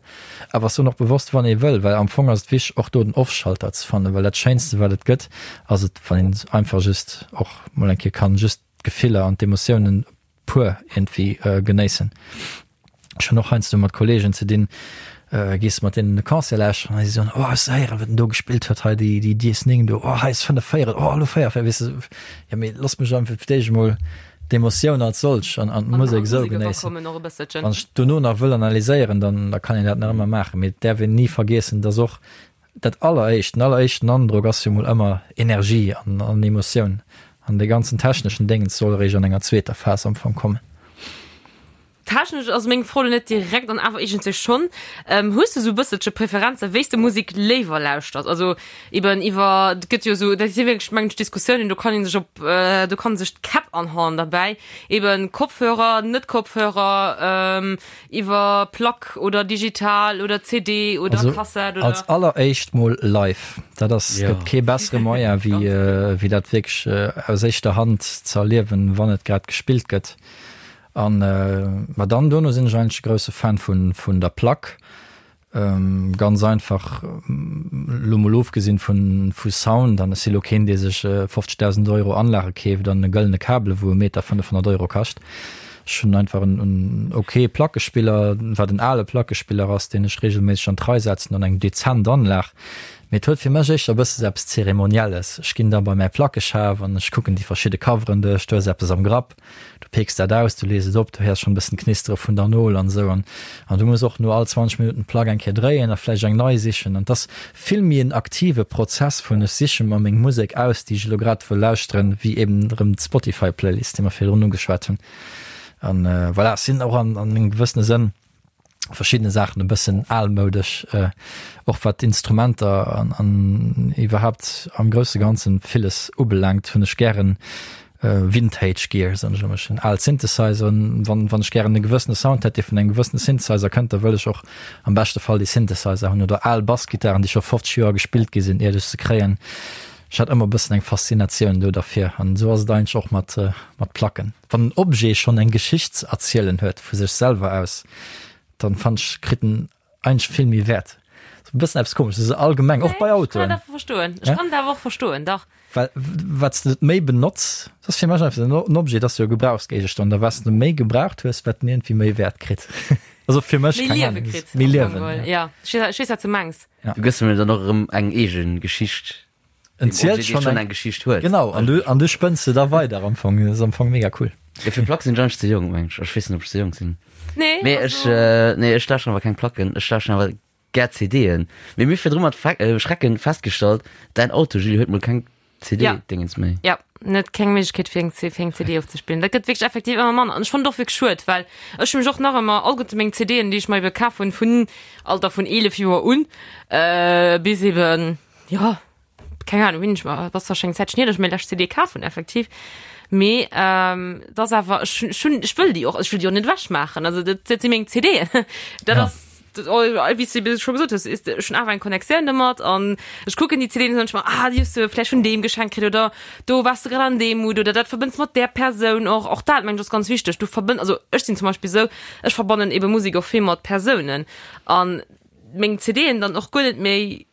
S4: Awer ech soen och bewosst wann ee wëll, well am Fong ass et wichteg och do den Off-Schalter ze fannen, well dat Schéinste wat et gëtt ass et, wann een einfach just och mol eng Kéier kann just d'Gefiller an d'Emotiounen pur iergendwéi genéissen. Ech hunn och heiansdo mat Kollegen ze dinn, gees de mat deenen e Concert lauschteren a si soen, oh hues de héieren, wat en do gespillt huet hei, déi déi Dies 9 do, oh hei ass 5 véierel, oh elo 4 véierel, weess de, jo mee looss mech einfach fir d'éischt emol d'Emotioun als solch an an d'Musek esou genéissen. Wann ech dono nach wëll analyséieren, dann da kann een dat nach ëmmer maachen, mee et däerf een ni vergiessen, dass och Dat alleréischt, den alleréischten Androck ass jo mol ëmmer Energie an an Emotioun. An dee ganzen techneschen Déngens soll eréischt an enger zweeter Phas am Fong kommen.
S3: Technesch ass meng Fro lo net direkt an awer iergendwéi schonn. Hues de sou e bësselche Preferenze wéi s de Musek léiwer lauschters? Also eben iwwer, et gëtt jo sou, dat si wierklech mengen ech Diskussiounen, do kann ee sech op, do kann sech d'Käpp anhauen derbäi, eben Kopfhörer, net Kopfhörer, Iwwer Plack oder digital oder CD oder
S4: also,
S3: Kassett oder?
S4: Als alleréischt mol live. Dat ass, ja. gëtt kee bessere Moyen wéi, äh, wéi dat wierklech äh, aus éischter Hand ze erliewen, wann et grad gespillt gëtt. An äh, ma dann dono sinn ech eigentlech e grousse Fan vun, vun der Plack. Ganz einfach, elo mol ofgesinn vun vu Sound, an ech si lo keen, dee sech 50.000 Euro Anlage keeft an e gëllene Kabel, wou e Meter 500 Euro kascht. Ech hunn einfach en en ok Plackespiller, wat en ale Plackespiller ass, deen ech regelméisseg an d'Rei setzen an eng dezent Anlag. Mee et huet fir mech éischter e bësse sou eppes Zeremonielles. Ech ginn da bei mäi Plackeschaf an ech kucken déi verschidde Coveren duerch, do ass eppes am Grapp. Du peeks dat aus, du lees et op, du héiers schonn e bëssen d'Knistere vun der Nol an esou. An, an du muss och no all 20 Minutten d'Plack eng Kéier dréien a vläicht eng nei sichen. An 't ass vill méi en aktive Prozess vun ech siche mer meng Musek aus, déi ech elo grad wëll lauschteren, wéi eben erëm d'Spotify-Playlist, déi mer virdrun ugeschwat hunn. An voilà, ech sinn och an, an engem gewëssene Sënn verschiddene Saachen e bëssen almoudesch, och wat d'Instrumenter an, an iwwerhaapt am grousse Ganzen villes ubelaangt, hunn ech gären Vintage Gear, soen ech ëmmer. Ech hunn al Synthesizeren, wann, wann ech gären e gewëssene Sound hätt, dee vun engem gewëssene Synthesizer kënnt, da wëll ech och am beschte Fall dee Synthesizer hunn oder al Bassgittaren, déi scho 50 Joer gespillt gi sinn, iert ech se kréien. Ech hat ëmmer e bëssen eng Faszinatioun do derfir an esou ass et eigentlech och mat, mat Placken. Wann en Objet schonn eng Geschicht ze erzielen huet vu sech selwer aus, dann fannen ech kritt en eigentlech vill méi Wäert. Sou e bëssen eppes komesches, esou allgemeng, och bei
S3: Ech kann
S4: Autoen.
S3: dat awer verstoen. Ech kann dat awer och verstoen, dach.
S4: Well wat s de et méi benotz, dat ass fir mech einfach en Objet, dat ass jo e Gebrauchsgéigestand, a wat s de méi gebraucht hues, wat en iergendwéi méi Wäert kritt. Also fir mech,
S3: Méi
S4: keng
S3: Liewe
S4: Ahnung,
S3: kritt.
S4: méi
S3: am
S4: Liewen,
S3: Fong geholl.
S4: ja.
S3: Ja, ech weess, ech weess, wat s de mengs.
S4: Ja.
S2: Du gëss em dann och erëm eng eegen Geschicht.
S4: En zielt
S2: schon eng, eng Geschicht huet.
S4: Genau an du an du spënns se da weider am Fong ass am Fong mega cool.
S2: Ja, fir Plack sinn ech ze jong meng ech. Ech weess net ob ech ze jong sinn.
S3: Nee,
S2: Mee ech äh, nee ech lauschteren awer keng Placken, ech lauschteren awer gär CDen. Mee mir virdru mat Fe äh, Schrecken festgestallt, däin Auto Julie huet mol keng CD-Dingens méi.
S3: Ja, net keng Méiglechkeet fir eng fir eng CD ofzespillen. Dat gëtt wierklech effektiv ëmmer manner. An ech fannen et och wierklech schued, well ech hu mech och nach ëmmer alleguerte meng CDen, déi ech mer ebe kaf hunn, vun Alter vun 11 Joer un äh, bis eben jo, keng Ahnung, wéini ech mer, et ass zwar schon eng Zäitchen hier, datt ech meng lescht CD kaf hunn, effektiv, mee ähm, et ass awer, ech hunn, ech hunn, ech wëll déi och, ech wëll déi och net ewechmaachen, also dat, dat si meng CDen, dat
S4: Ja.
S3: ass, dat, oh, wéi s de scho gesot hues, is, ech hunn awer eng Connectioun domat an ech kucken déi CDen an soen ech mer, ah, déi hues de vläicht vun deem geschenkt kritt oder do waars de grad an deem Mood oder dat verbënns mat där Persoun och, och dat mengen ech ass ganz wichteg, du verbënn, also ech sinn zum Beispill esou, ech verbannen ebe Musek och vill mat Persounen an meng CDen dann och guer net méi.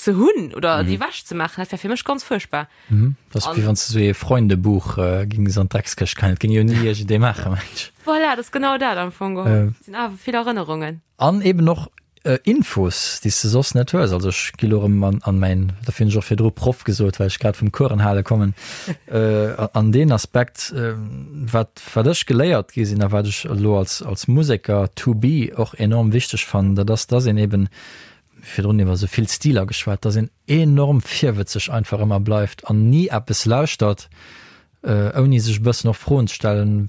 S3: ze hunn oder déi ewech ze maachen, dat wär fir mech ganz fuerchtbar.
S4: Dat ass wéi wann s de sou ee Freundebuch gings an d'Dreckskëscht geheien. Dat géing jo ni iergendee maachen, mengen ech.
S3: Voilà, dat ass genau dat am Fong geholl. Et sinn awer vill Erënnerungen.
S4: An eben och Infos, déi s de soss net hues. Also ech gi lo erëm an mäin, dofir hunn ech och virdru Proff gesot, well ech grad vum Coursen hale kommen, an deen Aspekt, wat wat ech geléiert gi sinn a wat ech elo als als Museker to be och enorm wichteg fannen, dat ass, dass een eben, virdrun iwwer esou vill Stiler geschwat, dass een enorm virwëtzeg einfach ëmmer bleift an ni eppes lauschtert, ouni sech e bëssen och Froen ze stellen,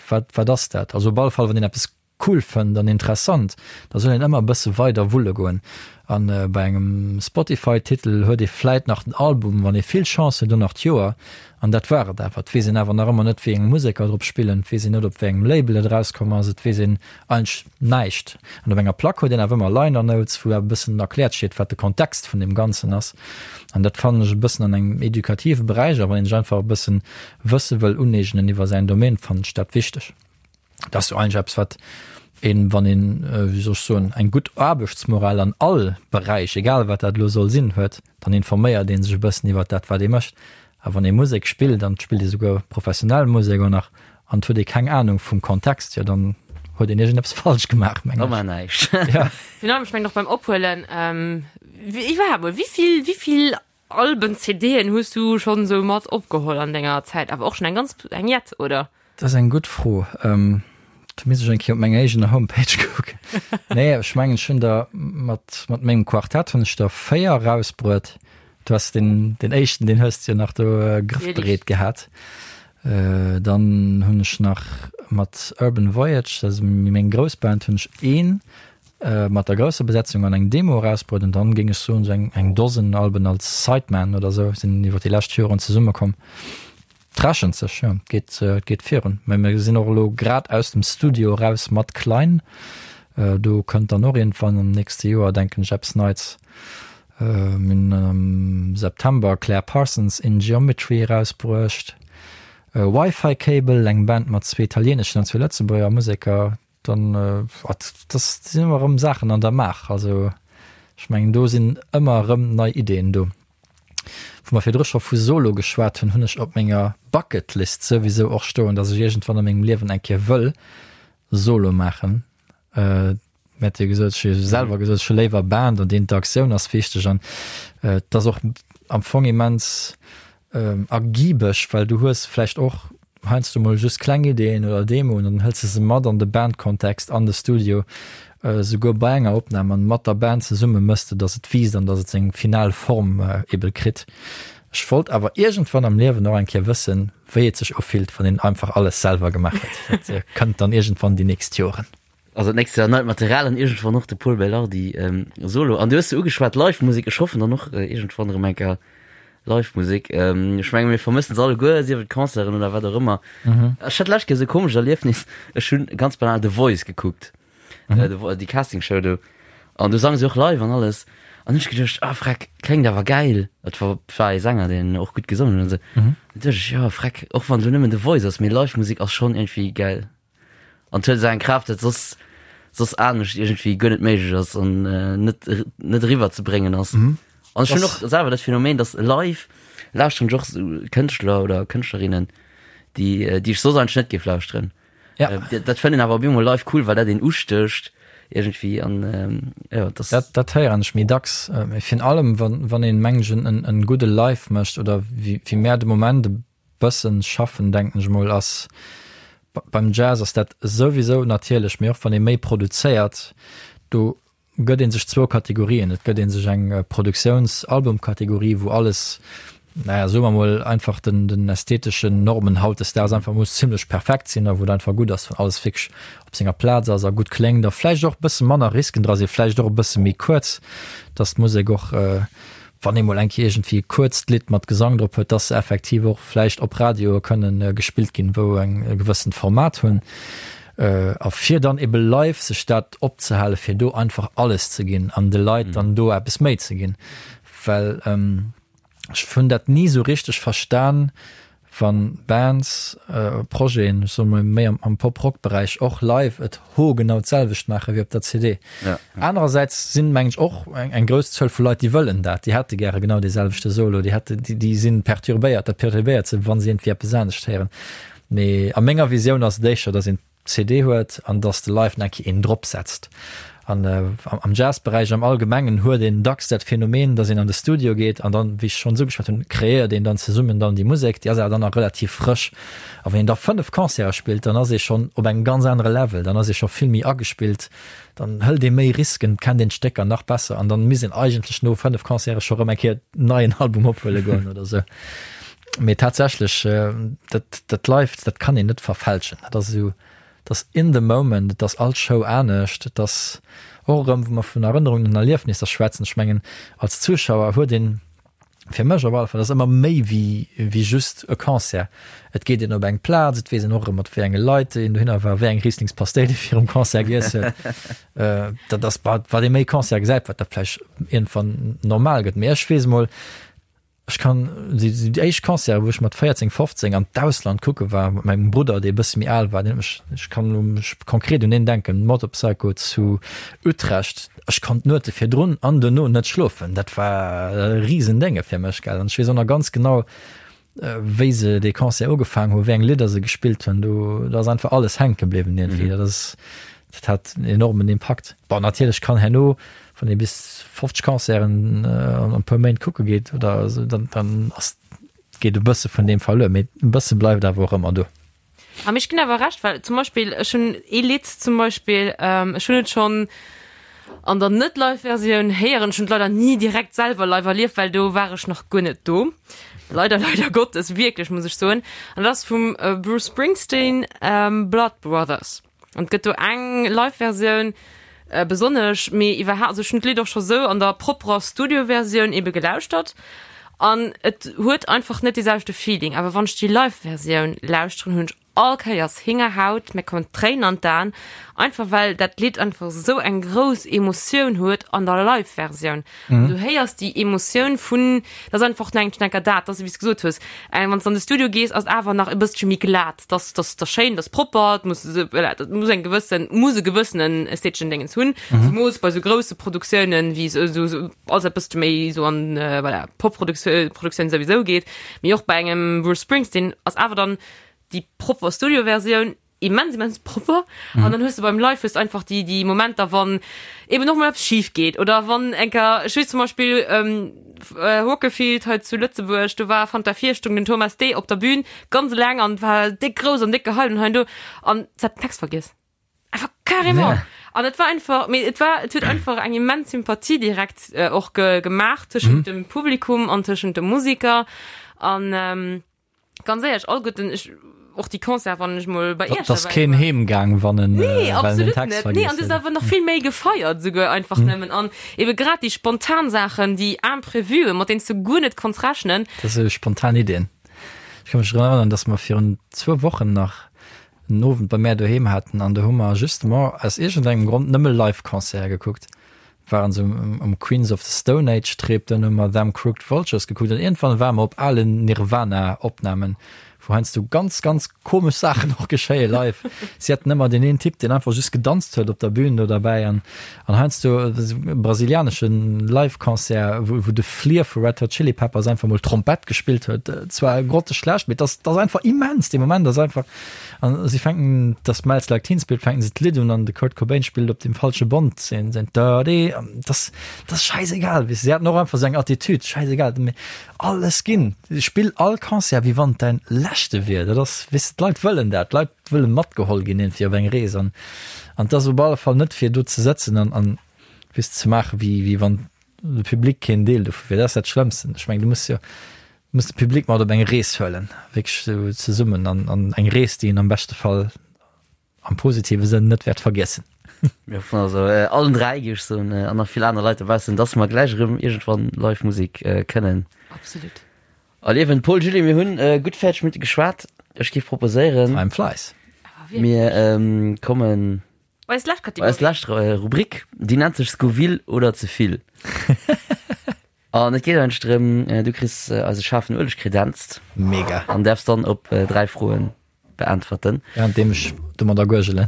S4: wat wat ass dat? Also op alle Fall, wann een eppes cool fënnt an interessant, da soll een ëmmer e bësse weider wulle goen. An bei engem Spotify-Titel huet ee vläit nach den Album, wann ee vill Chance huet, och nach d'Joer. An dat war et awer. Et weess een awer nach ëmmer net, wéi eng Museker drop spillen, et weess een net, op wéi engem Label et erauskomm ass, et weess een eigentlech näischt. An op enger Plack huet een awer ëmmer Liner Notes, wou awer e bëssen erkläert steet, wat de Kontext vun deem Ganzen ass. An dat fannen ech e bëssen an engem edukative Beräich, a wann een sech einfach e bëssen Wësse wëll uneegnen iwwer säin Domaine, fannen ech dat wichteg. Dat ass jo eigentlech eppes, wat een, wann een, wéi soll ech soen, eng gutt Aarbechtsmoral an all Beräich, egal wat dat elo soll sinn, huet, dann informéiert ee sech e bëssen iwwert dat, wat ee mécht. A wann ee Musek spillt, an et spillt ee souguer professionell Musek och nach, an et huet ee keng Anung vum Kontext, jo dann huet een iergendeppes falsch gemaach,
S2: mengen ech. Da war näischt.
S3: Ja. Finalement, ech mengen och beim Ophuelen, iwwerhaapt mol, wéi vill, wéi vill Alben, CDen hues du schonn sou mat opgeholl an denger Zäit? Awer och schonn eng ganz eng jett, oder?
S4: Dat ass eng gutt Fro. Do misst ech eng Kéier op menger eegener Homepage kucken. Nee, ech mengen, ech hunn der mat, mat mengem Quartett hunn ech der 4 erausbruet. Du has deen, deen éischten, deen hues de jo nach do grëffbereet gehat. Dann hunn ech nach mat Urban Voyage, dat ass méi meng grouss Band, hunn ech een mat der grousser Besetzung an eng Demo erausbruet an dann géing ech soen sou eng eng Dosen Alben als Sideman oder sou sinn iwwer déi lescht Joren zesummekomm. Et rechent sech, jo, et geet et geet virun. Mä mir sinn och elo grad aus dem Studio eraus mat Klein. Do kënnt dann och iergendwann am nächste Joer denken ech eppes Neits. Mir hunn am September Claire Parsons in Geometry erausbruecht. Wi-Fi Cable, eng Band mat zwee italieeneschen an zwee Lëtzebuerger Museker, Dann, wat, dat sinn ëmmer erëm Saachen an der Maach. Also ech mengen, do sinn ëmmer erëm nei Ideeën do. Wou mer virdru scho vu Solo geschwat hunn, hunn ech op menger Bucketlist souwisou och stoen, datt ech iergendwann a mengem Liewen eng Kéier wëll Solo maachen. Mir hat jo gesot, ech hu jo selwer gesot, ech hu léiwer Band an déi Interaktioun ass wichteg an et ass och am Fong immens ergibeg, well du hues vläicht och heiansdo mol just kleng Ideeën oder Demoen an dann hëls de se mat an de Bandkontext, an de Studio, souguer bei enger Opnam an mat der Band zesumme mëss de, dass et wiisst an dass et seng final Form ebe kritt. Ech wollt awer iergendwann am Liewen och eng Kéier wëssen, wéi et sech ufillt, wann een einfach alles selwer gemaach huet. Dat kënnt dann iergendwann déi nächst Joren.
S2: Also d'nächst Joer neit Material an iergendwann och de Pol Belardi Solo. An du hues se ugeschwat, Live-Musek, ech hoffen dann och iergendwann erëm eng Kéier Live-Musek. Ech menge mir vermëssen se alleguer, sief et Concerten oder wat och ëmmer. Ech hat d'lescht Kéier esou e komescht Erliefnis, ech hunn ganz banal The Voice gekuckt, déi Castingshow do, an do sange se och live an alles. An hunn ech geduecht, ah freck, kléngt awer gäil. Et war war ee Sänger, deen och gutt gesongen huet an esou. An duecht ech, jo freck, och wann et elo nëmmen The Voice ass, mee Live-Musek ass schonn iergendwéi gäil. An huet esou eng Kraaft, dat soss soss anescht iergendwéi guer net méiglech ass an äh, net net eriwwer ze bréngen ass. Mhm. An ech hunn och selwer dat Phänomen, dass live lauschteren ech och sou Kënschtler oder Kënschtlerinnen, déi äh, déi ech soss eigentlech net géif lauschteren.
S4: Ja.
S2: Äh, dat, dat fënnt een awer op eemol live cool, well dat een ustécht iergendwéi an ähm, ja,
S4: das Dat, dat héieren ech méi dacks. Äh, virun allem, wann, wann een, mengen ech, en, en gudde Live mécht oder wéi, wéi mär de Moment e bëssen schaffen, denken ech mol, ass beim Jazz ass dat souwisou natierlech, mee och wann ee méi produzéiert, do gëtt ee sech zwou Kategorien. Et gëtt ee sech eng Produktiouns-Album-Kategorie, wou alles, naja, soe mer mol einfach den, den ästheteschen Normen hautdesdaags einfach muss zimlech perfekt sinn a wou et einfach gutt ass, wann alles wierklech op senger Plaz ass a gutt kléngt a vläicht och e bësse manner Risken dra sinn, vläicht och e bësse méi kuerz, dass d'Musek och wann ee mol eng Kéier iergendwéi e kuerzt Lidd mat Gesang drop huet, dass se effektiv och vläicht op Radioe kënnen gespillt ginn, wou eng e gewëssent Format hunn. A fir dann ebe live sech dat opzehale fir do einfach alles ze ginn an de Leit dann do eppes méi ze ginn. Well ech hunn dat ni esou richteg verstan. Wann Bands, Projeten, ech soe mol méi am Pop-Rock-Beräich, och live et hoergenau d'selwecht maache wéi op der CD. Anerersäits sinn, mengen ech, och eng grouss Zuel vu Leit, déi wëllen dat, déi hätte gäre genau dee selwechte Solo, déi hätte, déi si perturbéiert, dat perturbéiert se, wa se iergendwéi eppes anescht héieren. Mee a menger Visioun ass et éischter, datt een CD huet an dass de live nach eng Kéier een drop setzt. An am Jazzberäich am Allgemengen huet een dacks dat Phänomen, dass een an de Studio geet an dann, wéi ech schonns ugeschwat hunn, kreéiert een dann zesummen dann déi Musek, déi ass awer dann nach relativ frësch. A wann een da 5 Concerte spillt, dann ass ee schonn op engem ganz anere Level, dann ass ee scho vill méi agespillt, dann hëlt ee méi Risken, kennt een d'Stécker nach besser an dann misst een eigentlech no 5 Concerte scho rëm eng Kéier en neien Album ophuele goen oder sou. Mee tatsächlech, dat, dat Live, dat kann een net verfälschen. Dat ass esou, dat ass in the moment, et ass all Show anescht, et ass och erëm, wou mer vun Erënnerungen an Erliefnisser schwätzen, ech mengen, als Zuschauer huet een, fir mech op alle Fall, dat ass ëmmer méi wéi, wéi just e Concert. Et geet een op eng Plaz, et weess een och erëm, mat wéi enge Leit een dohinner war, wéi eng Rieslingspasteil ee virum Concert giess huet. Dat ass, wat ee méi Concerte gesäit, wat dat vläicht iergendwann normal gëtt. Mee ech weess emol, Ech kann déi éischt Concerte wou ech mat 14, 15 an d'Ausland kucke war mat mengem Brudder dee e bësse méi al war, deen huet mech, ech kann elo mech konkret un deen denken, Motorpsycho zu Utrecht, ech konnt d'Nuete virdrun an duerno net schlofen, dat war e Risendénge fir mech gell an ech weess och nach ganz genau wéi se dee Concert ugefaangen hu, wéi eng Lidder se gespillt hunn, do do ass einfach alles hänke bliwwen iergendwéi, dat ass dat hat en enormen Impakt. Bon natierlech kann herno Wann ee bis 50 Concerten an e puer Méint kucke geet oder esou, dann, dann ass, geet e bësse vun deem verluer, mee e bësse bleift awer och ëmmer do.
S3: A mee ech ginn awer Recht, well zum Beispill ech hunn ee Lidd zum Beispill, ech hunn et schonn an der net-Live-Versioun héieren, ech hunn et leider ni direkt selwer live erlieft, well do war ech nach guer net do, leider, leider Gottes, wierklech, muss ech soen, an dat ass vum Bruce Springsteen, Blood Brothers. An et gëtt do eng Live-Versioun besonnesch, mee iwwerhaapt, also ech hunn d'Lidd och scho sou an der propperer Studio-Versioun ebe gelauschtert an et huet einfach net dee selwechte Feeling. Awer wann ech déi Live-Versioun lauschteren, hunn ech all Kéiers Héngerhaut, mir kommen d'Tréinen an d'Aen, einfach well dat Lidd einfach sou eng grouss Emotioun huet an der Live-Versioun. Mhm. Du héiers déi Emotioun vun, dat ass einfach nach eng Schnecker dat, dass wéi s gesot hues, eng wann s an de Studio gees, ass awer nach e bësselche méi glat, dass dass dass schéin, dass propper, et muss voilà, dat muss eng gewëssen muss e gewëssenen ästheteschen Dingens hunn, mhm. zemoos bei sou grousse Produktiounen wéi sou sou sou alles e bëssche méi sou an äh, voilà, Pop-Produktioun Produktioun souwisou geet, mee och bei engem Bruce Springsteen ass awer dann déi propper Studio-Versioun immens immens propper mhm. an dann hues du beim Live hues einfach die die Momenter wann eben noch mal etwas schief geht oder wann enker ich weiß zum Beispiel ähm, äh, Hockefield heute zu Lützeburg du war fand der vier Stunden den Thomas D op der Bühne ganz lang an war dick groß an dick gehalten hein du an hat Text vergiss einfach carrément ja. an et war einfach mir et war et huet einfach eng immens Sympathie direkt äh, och ge gemacht zwischen mhm. dem Publikum an zwischen dem Musiker an ähm, Ganz éierlech, all gutten, ech, och déi Concert, wann ech mol bei
S4: Iech Dass keen heem gaang, wann en,
S3: Nee, well en den absolut Text net. Nee, an du hues awer nach vill méi gefeiert souguer einfach nëmmen. An ebe grad déi spontan Saachen, déi Imprevuen, mat deenen s du guer net konns rechnen.
S4: Dat sou spontan Iddien. Ech ka mech drun erënneren, dass mer virun zwou Wochen nach en Owend bei mär doheem haten an do hu mer justement aus iergendengem Grond nëmme Live-Concerte gekuckt. Waren se um Queens of the Stone Age Trip, dann hu mer Them Crooked Vultures gekuckt an iergendwann ware mer op alen Nirvana Opnamen, wou heiansdo ganz ganz komesch Saachen och geschéie live. Si haten ëmmer deen een Typ, deen einfach just gedanzt huet op der Bühn do derbäi an an heiansdo e brasilianesche Live Concert, wou wou de Flea vu Red Hot Chili Peppers einfach mol Trompett gespillt huet. Zwar grotteschlecht, mee et ass et ass einfach immens, dee Moment ass einfach An si fänken das Smells Like Teen Spirit fänken se d'Lidd un an de Kurt Cobain spillt op dem falsche Bond seen seen Dirty an das das scheißegal wis se haten och einfach sou eng Attitude scheißegal mee alles ginn spill all Concert wéi wann et däin leschte wier dat ass weess de d'Leit wëllen dat d'Leit wëllen matgeholl ginn iergendwéi op eng Rees an an 't ass op alle Fall net fir do ze sëtzen an an weess ze maache wéi wéi wann de Public keen Deel dovu wier dat ass dat Schlëmmsten ech mengen du muss jo Muss de Public mat op eng Rees huelen, wierklech esou zesummen an an eng Rees, déi een am beschte Fall am positive Sënn net wäert vergiessen.
S2: Mir hoffen also allen 3, géif ech soen, an nach vill aner Leit dobaussen, dass mer gläich erëm iergendwann live Musek kënnen
S3: Absolut.
S2: erliewen. Paul, Julie, mir hunn gutt 40 Minutte geschwat. Ech géif proposéieren,
S4: Time flies.
S2: mir kommen
S3: Bei eis lescht
S2: bei eis
S3: Kategorie.
S2: lescht Rubrik, déi nennt sech Scoville oder ze vill. An et geet eigentlech drëm, du kriss eise schaarfen Ueleg kredenzt.
S4: Mega.
S2: An däerfs dann op 3 Froen beäntwerten.
S4: Währenddeem ech domadder guergelen.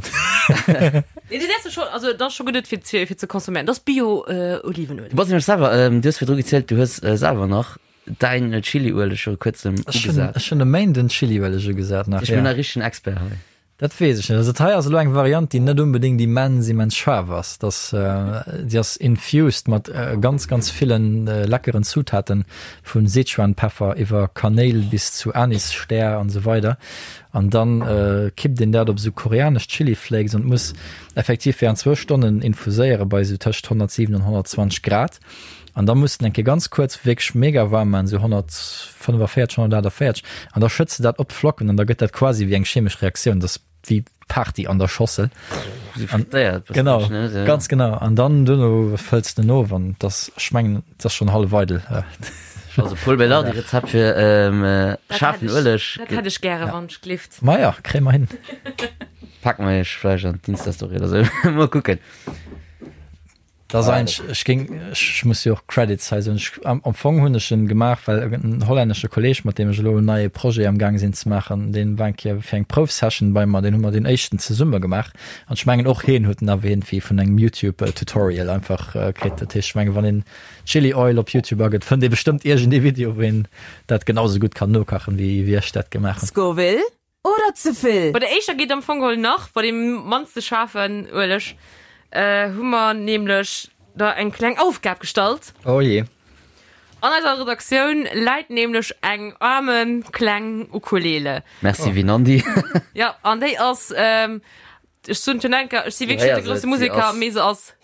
S3: Nee, du däerfs schon, also dat ass scho geduet fir ze, fir ze consomméieren. Dat ass Bio Olivenueleg.
S2: Du bass nämlech selwer, du hues virdru gezielt, du hues selwer nach däin Chiliueleg viru kuerzem ugesat.
S4: Ech hunn e Méinden Chiliueleg ugesat
S2: nach, ja. Ech bin e richtegen Expert hei.
S4: Dat weess ech net. Also dat hei ass elo eng Variant, déi net onbedéngt immens, immens schaarf ass. Dat, déi ass infused mat ganz, ganz ville leckeren Zutaten, vu Sichuanpeffer iwwer Kanéil bis zu Anisstär an esou weider. An dann kippt een dat op esou koreanesch Chili Flakes an muss effektiv während zwou Stonnen infuséiere bei esou tëscht 107 an 120 Grad. An da muss den eng Kéier ganz kuerz wierklech mega waarm maachen, esou 145, 148, an da schëtts de dat op d'Flocken an da gëtt dat quasi wéi eng chemesch Reaktioun, dat ass wéi Party an der Schossel.
S2: Esou frittéiert
S4: bëssen, Genau, ne? Ja. ganz genau. An dann duerno fëlls de en of an dat ass, ech mengen, dat ass schonn hallef eidel.
S2: Also Pol Belardi Rezept fir schaarfen Ueleg.
S3: Dat hätt ech gäre, wann ech glift.
S4: Maja, kréie mer hin.
S2: Pake mer iech vläicht an d'Insta-Story oder esou. Mol kucken.
S4: Dat ass eigentlech, ech géing, ech muss jo och Credits hei soen, ech, am, am Fong hunn ech en gemaach, well en hollännesche Kolleeg, mat deem ech elo en neie Projet am gaang sinn ze maachen, deen war eng Kéier fir eng Proufsession bei mer, deen hu mer deen éischten zesumme gemaach an ech mengen och hien huet en awer iergendwéi vun engem YouTube Tutorial einfach kritt. Dat heescht, ech mengen, wann een Chili Oil op YouTube agëtt, fënnt ee bestëmmt iergendee Video, wou een dat genau sou gutt kann nokachen, wéi, wéi ech dat gemaach hunn.
S1: Scoville Oder ze vill?
S3: Bei der éischter geet am Fong geholl nach, bei deem mannste schaarfen Ueleg hu mer nämlech der eng kleng Aufgab gestallt.
S4: Oh jee.
S3: An eiser Redaktioun läit nämlech eng aarme kleng Ukulele.
S2: Merci Vinandi.
S3: Jo, an déi ass Ech soen schon enker, ech si wierklech net de grousse Museker, mee se ass.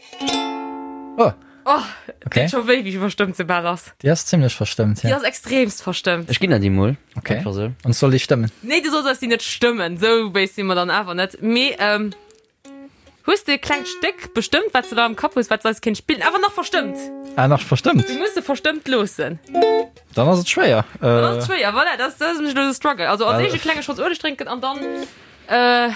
S4: Oh.
S3: Oh, okay. Deet scho wéi, wéi verstëmmt se bal ass.
S4: Déi ass zimmlech verstëmmt,
S3: ja. Déi ass extremst verstëmmt.
S2: Ech ginn der déi mol.
S4: Okay. Einfach sou. An soll déi stëmmen?
S3: Nee, du solls eis déi net stëmmen. Sou béis si mer dann awer net. Mee, ähm, hues de e klengt Stéck bestëmmt, wat s de da am Kapp hues, wat s eis kéint spillen? Awer nach verstëmmt!
S4: Ah, nach verstëmmt?
S3: Du muss se verstëmmt loossen.
S4: Dann ass et schwéier.
S3: Dann ass et schwéier, voilà, dat ass, dat ass nämlech elo de Struggle. Also als éischt e klenge Schotz Ueleg drénken an dann. Äh.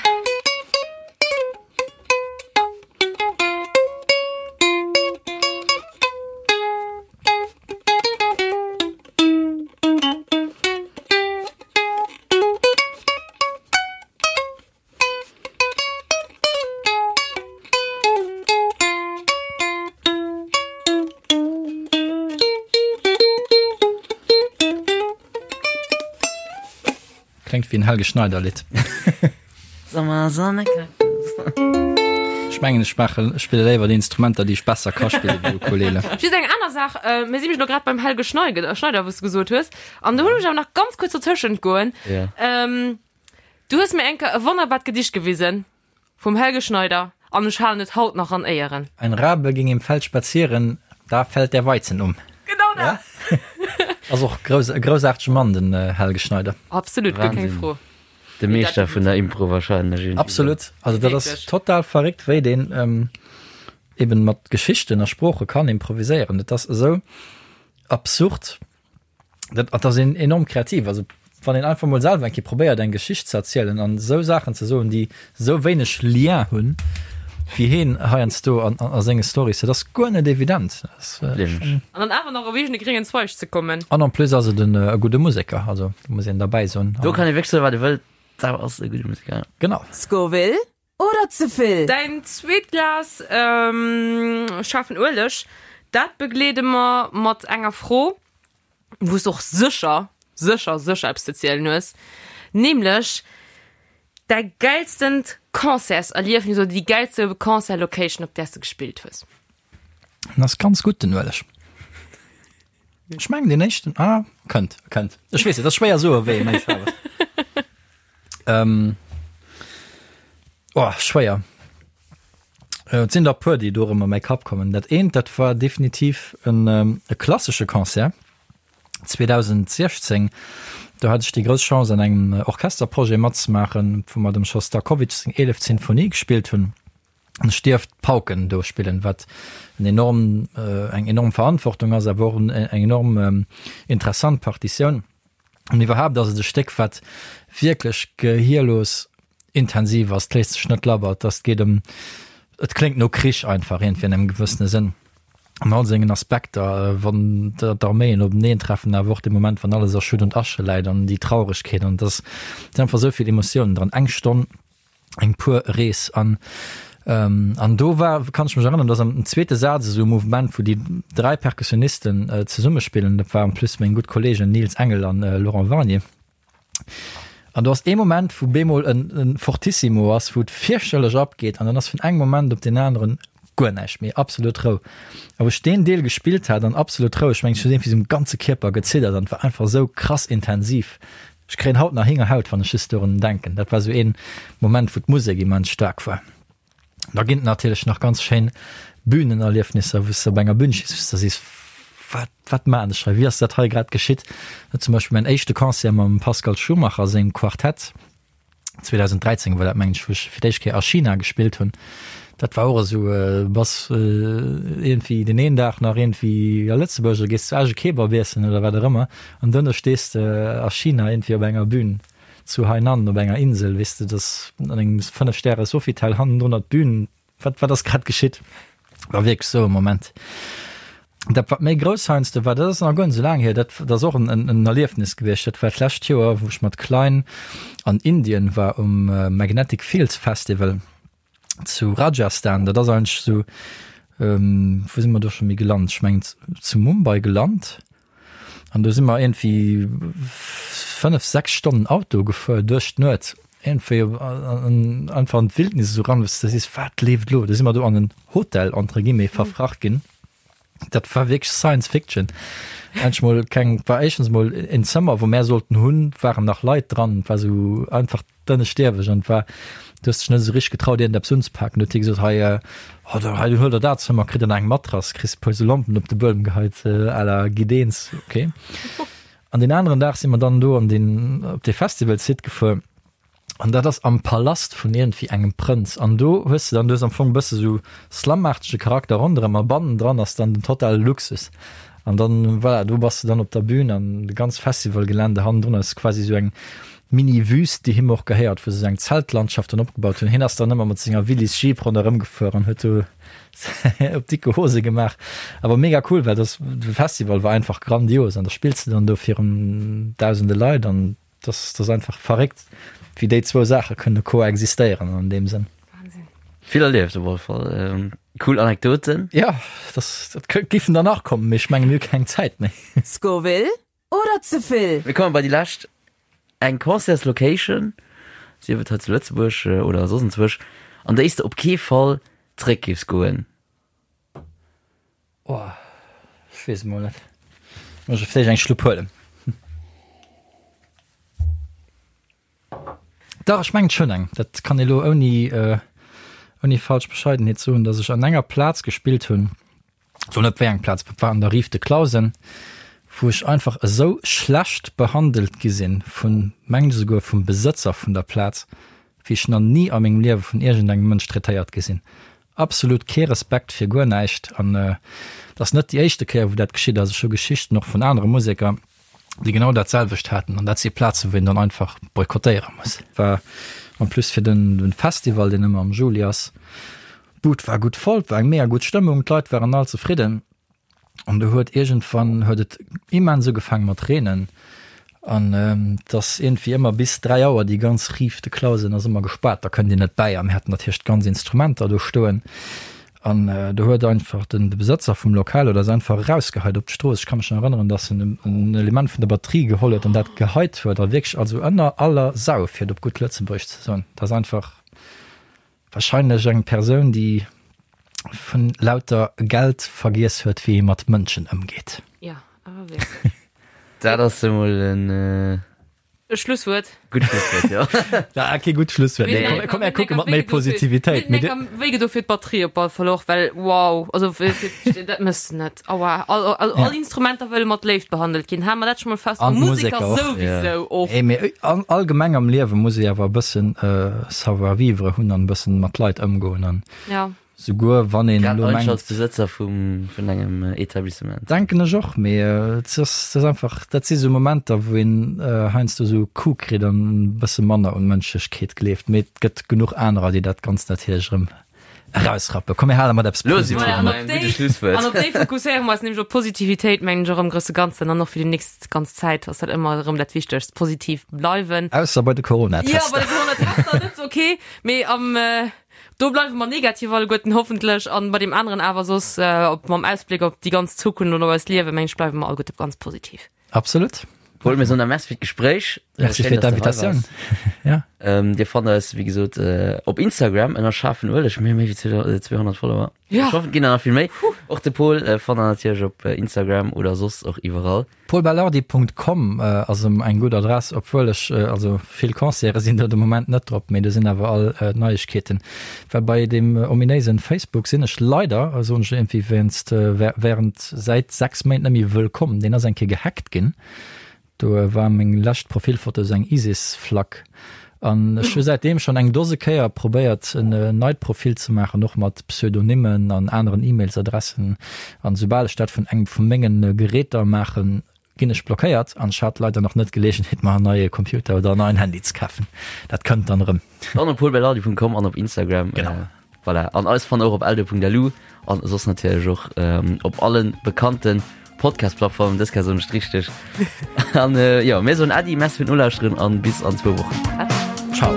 S4: Kléngt wéi en Helge Schneider Lidd.
S2: Sommer, Sonne, Kaktus.
S4: Ech mengen ech maachen, ech spille léiwer déi Instrumenter déi ech besser ka spille wéi Ukulele.
S3: Just eng aner Saach, mir si mech elo grad beim Helge Schneider, Schneider wou s de gesot hues, an do hunn ech awer nach ganz kuerz dotëschent goen.
S2: Ja.
S3: Du hues mir eng Kéier e wonnerbart Gedicht gewisen vum Helge Schneider an ech halen et haut nach an Éieren.
S4: Ein Rabe ging im Feld spazieren, da fällt der Weizen um.
S3: Genau dat!
S4: Ja. Ass och grouss, e groussaartege Mann, den Helge Schneider.
S3: Absolut, guer keng Fro.
S2: De Meeschter vun der Impro wahrscheinlech iergendwéi.
S4: Absolut. Also dat ass total verréckt, wéi deen eben mat Geschichten a Sprooche kann improviséieren. Dat ass esou absurd. Dat ass een enorm kreativ. Also wann een einfach mol selwer eng Kéier probéiert eng Geschicht ze erzielen an esou Saachen ze soen, déi esou wéineg Lien hunn, wéi heen heiansdo an a senge Stories, dat ass guer net evident.
S3: An dann awer nach op eegene gréngen Zweig ze kommen.
S4: An en plus ass et en e gudde Museker, also do muss een derbäi soen.
S2: Do kann ee wierklech soen, wat ee wëllt, dat ass e gudde Museker, ja.
S4: Genau.
S1: Scoville Oder ze vill?
S3: Däin zweet Glas schaarfen Ueleg, dat begleede mer mat enger Fro, wou s de och sécher, sécher, sécher eppes ze zielen hues, nämlech däi gäilstent Concertserliefnis oder déi gäilste Concertlocation, op där s de gespillt hues.
S4: En ass ganz gutt, den Ueleg. Ech mengen deen éischten, ah, kënnt, kënnt. Ech weess net, ass schwéier soe wéi e méi schaarf ass. Ähm, oh, schwéier. Äh, et sinn der e puer, déi do erëm a mäi Kapp kommen. Dat eent, dat war definitiv en, ähm, e klassesche Concert 2016. Do hat ech déi grouss Chance, an engem Orchesterprojet matzemaachen, wou mer dem Schostakowitsch seng eeleft Sinfonie gespillt hunn. An ech dierft d'Pauken do spillen, wat en enorm, eng enorm Verantwortung ass, awer och eng enorm interessant Partitioun. An iwwerhaapt ass et e Stéck, wat wierklech gehierlos intensiv ass. Et léisst sech net labber, et ass, et geet ëm, et kléngt no Krich einfach iergendwéi an engem gewëssene Sënn. An all sengen Aspekter, wann d'Arméien openeen treffen, awer och de Moment, wann alles a Schutt und Asche läit an déi Trauregkeet an dass sinn einfach esou vill Emotiounen dran. Eng Stonn, eng puer Rees an an do war, kann ech mech erënneren, dass am zweete Saz esou e Mouvement, wou déi 3 Perkussionisten zesummespillen, dat war en plus meng gutt Kollegen Nils Engel an Laurent Warnier, An do ass ee Moment, wou bemol en, en Fortissimo ass, wou et fierchterlech abgeet an dann ass vun engem Moment op deen aneren guer näischt méi, absolut Rou. A wou ech deen Deel gespillt hat an absolut Rou, ech mengen, ech hunn iergendwéi sou um ganze Kierper geziddert an et war einfach esou krass intensiv. Ech kréien haut nach Héngerhaut, wann ech just dorun denken. Dat war sou een Moment, wou d'Musek immens staark war. Da ginn et natierlech nach ganz schéin Bühnenerliefnisser, wou s de op enger Bühn stees, wou s de sees, Wat, wat maachen ech hei? Wéi ass dat hei grad geschitt? Zum Beispill mäin éischte Concert mam Pascal Schumacher sengem Quartett, 2013 war dat, mengen ech, wou ech fir d'éischt Kéier a China gespillt hunn. Dat war och esou, bass iergendwéi deen een Dag nach iergendwéi a Lëtzebuerg a gees zu Esch e Kebab iessen oder wat och ëmmer an duerno stees de a China iergendwéi op enger Bühn. Zu Hainan op enger Insel, weess de, dass an engem 5 Stäre Sofitel hannendrun d'Bühn, wat wat ass grad geschitt? War wierklech sou e Moment. Dat wat méi grouss heiansdo war, dat ass nach guer net sou laang hier, dat dat ass och en en Erliefnis gewiescht, dat war d'lescht Joer, wou ech mat Klein an Indien war um Magnetic Fields Festival. zu Rajasthan, dat ass eigentlech esou, wou si mer do scho méi gelant? Ech mengen zu Mumbai gelant an do si mer iergendwéi 5, 6 Stonnen Auto gefuer duerch d'Nuet, iergendwéi einfach an d'Wildnis esou ran, wou s de sees, wat leeft elo? Do si mer do an en Hotel entre guillemets verfracht ginn. Dat war wierklech Science Fiction. Endlech mol keng, war éischtens mol en Zëmmer, wou mär sollten hunn, waren nach Leit dran, et war sou einfach dënneschdierweg an et war, du hues dech net esou richteg getraut iergendeppes unzepaken. Du huet hie gesot, hei, oh da hei huel der dat Zëmmer, kritt der nach eng Matrass, kriss e puer sou Lompen op de Buedem geheit à la Gideens, ok. An deen aneren Dag si mer dann do an deen, op dee Festival-Site gefuer. An dat ass am Palast vun iergendwéi engem Prënz. An do hues de dann, du hues am Fong e bësse sou slumaartege Charakter ronderëm a bannendran ass dann den totale Luxus. An dann, voilà, do bass de dann op der Bühn an de ganz Festivalgelände hannendrun ass quasi sou eng Mini-Wüst, déi him och gehéiert, wou se sou eng Zeltlandschaft dann opgebaut hunn. Hien ass dann ëmmer mat senger Willys Jeep ronderëm gefuer an huet do op dicke Hose gemaach. Awer mega cool, well das, de Festival war einfach grandios an da spills de dann do virun dausende Leit an Das, das ass einfach verréckt, wéi déi zwou Saache kënne koexistéieren an deem Sënn.
S2: Wahnsinn. Vill erlieft op alle Fall. Ähm, cool Anekdoten.
S4: Ja, das, dat kö- giffen der nach kommen, mee ech menge mir hu keng Zäit méi.
S1: Scoville oder ze vill?
S2: Mir kommen bei déi lescht. Eng Concertslocation, sief et hei zu Lëtzebuerg äh, oder soss enzwousch, an déi s de op kee Fall zréck giffs goen.
S4: Oh, ech weess et mol net. Muss ech vläicht eng Schlupp huelen. Dach, ech mengen ech hunn eng. Dat kann ee lo ouni, ouni falsch Bescheidenheet soen, datt ech an enger Plaz gespillt hunn, soen net wéi eng Plaz, dat war an der Rive de Clausen, wou ech einfach esou schlecht behandelt gi sinn vun, mengen ech esouguer vum Besëtzer vun der Plaz, wéi ech nach ni a mengem Liewe vun iergendengem Mënsch traitéiert gi sinn. Absolut kee Respekt fir guer näischt an et ass net déi éischte Kéier wou dat geschitt ass. Ech hu Geschichten och vun anere Museker, déi genau dat selwecht haten an dat si Plazen, wou een dann einfach boykottéiere muss. War en plus fir den Festival, deen ëmmer am Juli ass. D'Bud war gutt voll, et war eng mega gutt Stëmmung, d'Leit waren all zefridden. An du huet iergendwann huet et immens ugefaangen mat reenen an et ass iergendwéi ëmmer bis 3 Auer déi ganz Rive de Clausen ass ëmmer gespaart, da kënnt Dir net bäi a mir haten natierlech d'ganz Instrumenter do stoen an do huet einfach den de Besëtzer vum Lokal huet eis einfach erausgeheit op d'Strooss. Ech ka mech nach erënneren, dass en en Element vun der Batterie geholl huet an dat geheit huet a wierklech also ënner aller Sau, fir et op gutt Lëtzebuergesch ze soen. Dat ass einfach. Wahrscheinlech eng Persoun déi vun lauter Geld vergiess huet wéi ee mat Mënschen ëmgeet.
S3: Jo, awer wierklech.
S2: Dat ass emol en
S3: E Schlusswuert.
S2: gutt Schlusswuert, jo.
S4: Ja, kee gutt Schlusswuert.
S3: Mir
S4: Nee,
S3: hunn
S4: komm, komm, mir kucke mat méi Positivitéit.
S3: Mir hunn enker wéi gedo fir d'Batterie op alle Fall och, well wow, also fir, fir, dat mëss de net. Aua, all, all, all Instrumenter wëlle mat Léift behandelt ginn. Hale mer dat scho mol fest.
S4: An
S3: Museker
S4: d'Museker och.
S3: souwisou och.
S4: Ey, mee allgemeng am Liewe muss ee awer e bëssen Savoir-vivre hunn an e bëssen mat Leit ëmgoen an
S3: Ja.
S4: souguer wann een
S2: Grad
S4: elo
S2: eigentlech
S4: mengt.
S2: als Besëtzer vum, vun engem Etablissement.
S4: Denken ech och, mee et ass, et ass einfach, dat si sou Momenter, wou een heiansdo sou e Coup kritt an e bësse manner un Mënschlechkeet gleeft. Mee et gëtt genuch anerer, déi dat Ganzt natierlech erëm. Erausrappen. Komm mir hale mat eppes
S2: Lo si mer
S3: Voilà, an
S2: bei
S3: op
S2: engem
S3: déi,
S2: gudde Schlusswuert.
S3: an op déi fokusséiere mer eis nämlech op d'Positivitéit, mengen ech, och am grousse Ganzen an och fir déi nächst ganz Zäit ass dat ëmmer erëm dat Wichtegst, positiv bleiwen.
S4: Ausser bei de
S3: Ja,
S4: Coronatester.
S3: bei de Coronatester net, okay, mee am, do bleiwe mer negativ alleguerten hoffentlech an bei deem aneren awer soss, op, mam Ausbléck op déi ganz Zukunft an op eist Liewen, mengen ech, bleiwe mer alleguerte ganz positiv.
S4: Absolut.
S2: Paul, mir soen der Merci fir d'Gespréich.
S4: Merci
S2: Schéin,
S4: fir
S2: dass du hei
S4: d'Invitatioun.
S2: waars.
S4: Ja.
S2: Ähm, Dir fannt eis, wéi gesot, äh, op Instagram ënner schaarfen Ueleg. Mir hu méi wéi 200 Follower.
S3: Ja.
S2: Ech hoffen, et ginn der nach vill méi. Och de Paul äh, fannt der natierlech op äh, Instagram oder soss och iwwerall.
S4: paulbelardi.com äh, ass em eng gutt Adress, obwuel ech, äh, also vill Concerte sinn do de Moment net drop, mee do sinn awer all äh, d'Neiegkeeten. Well bei deem ominéisen Facebook sinn ech leider, soen ech iergendwéi wéinst, äh, während säit 6 Méint net méi wëllkomm. Deen ass eng Kéier gehackt ginn. Do war meng lescht Profilfoto sou eng ISIS-Flagg. An ech hu säitdeem schonn eng Dose Kéier probéiert en neit Profil ze maachen, och mat Pseudonymen an aneren E-Mails-Adressen. An soubal ech dat vun engem vu mengen Geräter maachen, ginn ech blockéiert. An ech hat leider nach net d'Geleegenheet mer en neie Computer oder en neien Handy ze kafen. Dat kënnt dann erëm.
S2: Dann op paulbelardi.com an op Instagram.
S4: Genau.
S2: Äh, voilà. An eis fannt och op eldo.lu an soss natierlech och ähm, op allen bekannten Podcast-Plattformen. Dës Kéier soen ech et richteg. An äh, jo, mir soen Äddi, Merci fir d'Nolauschteren an bis an zwou Wochen.
S4: Ciao.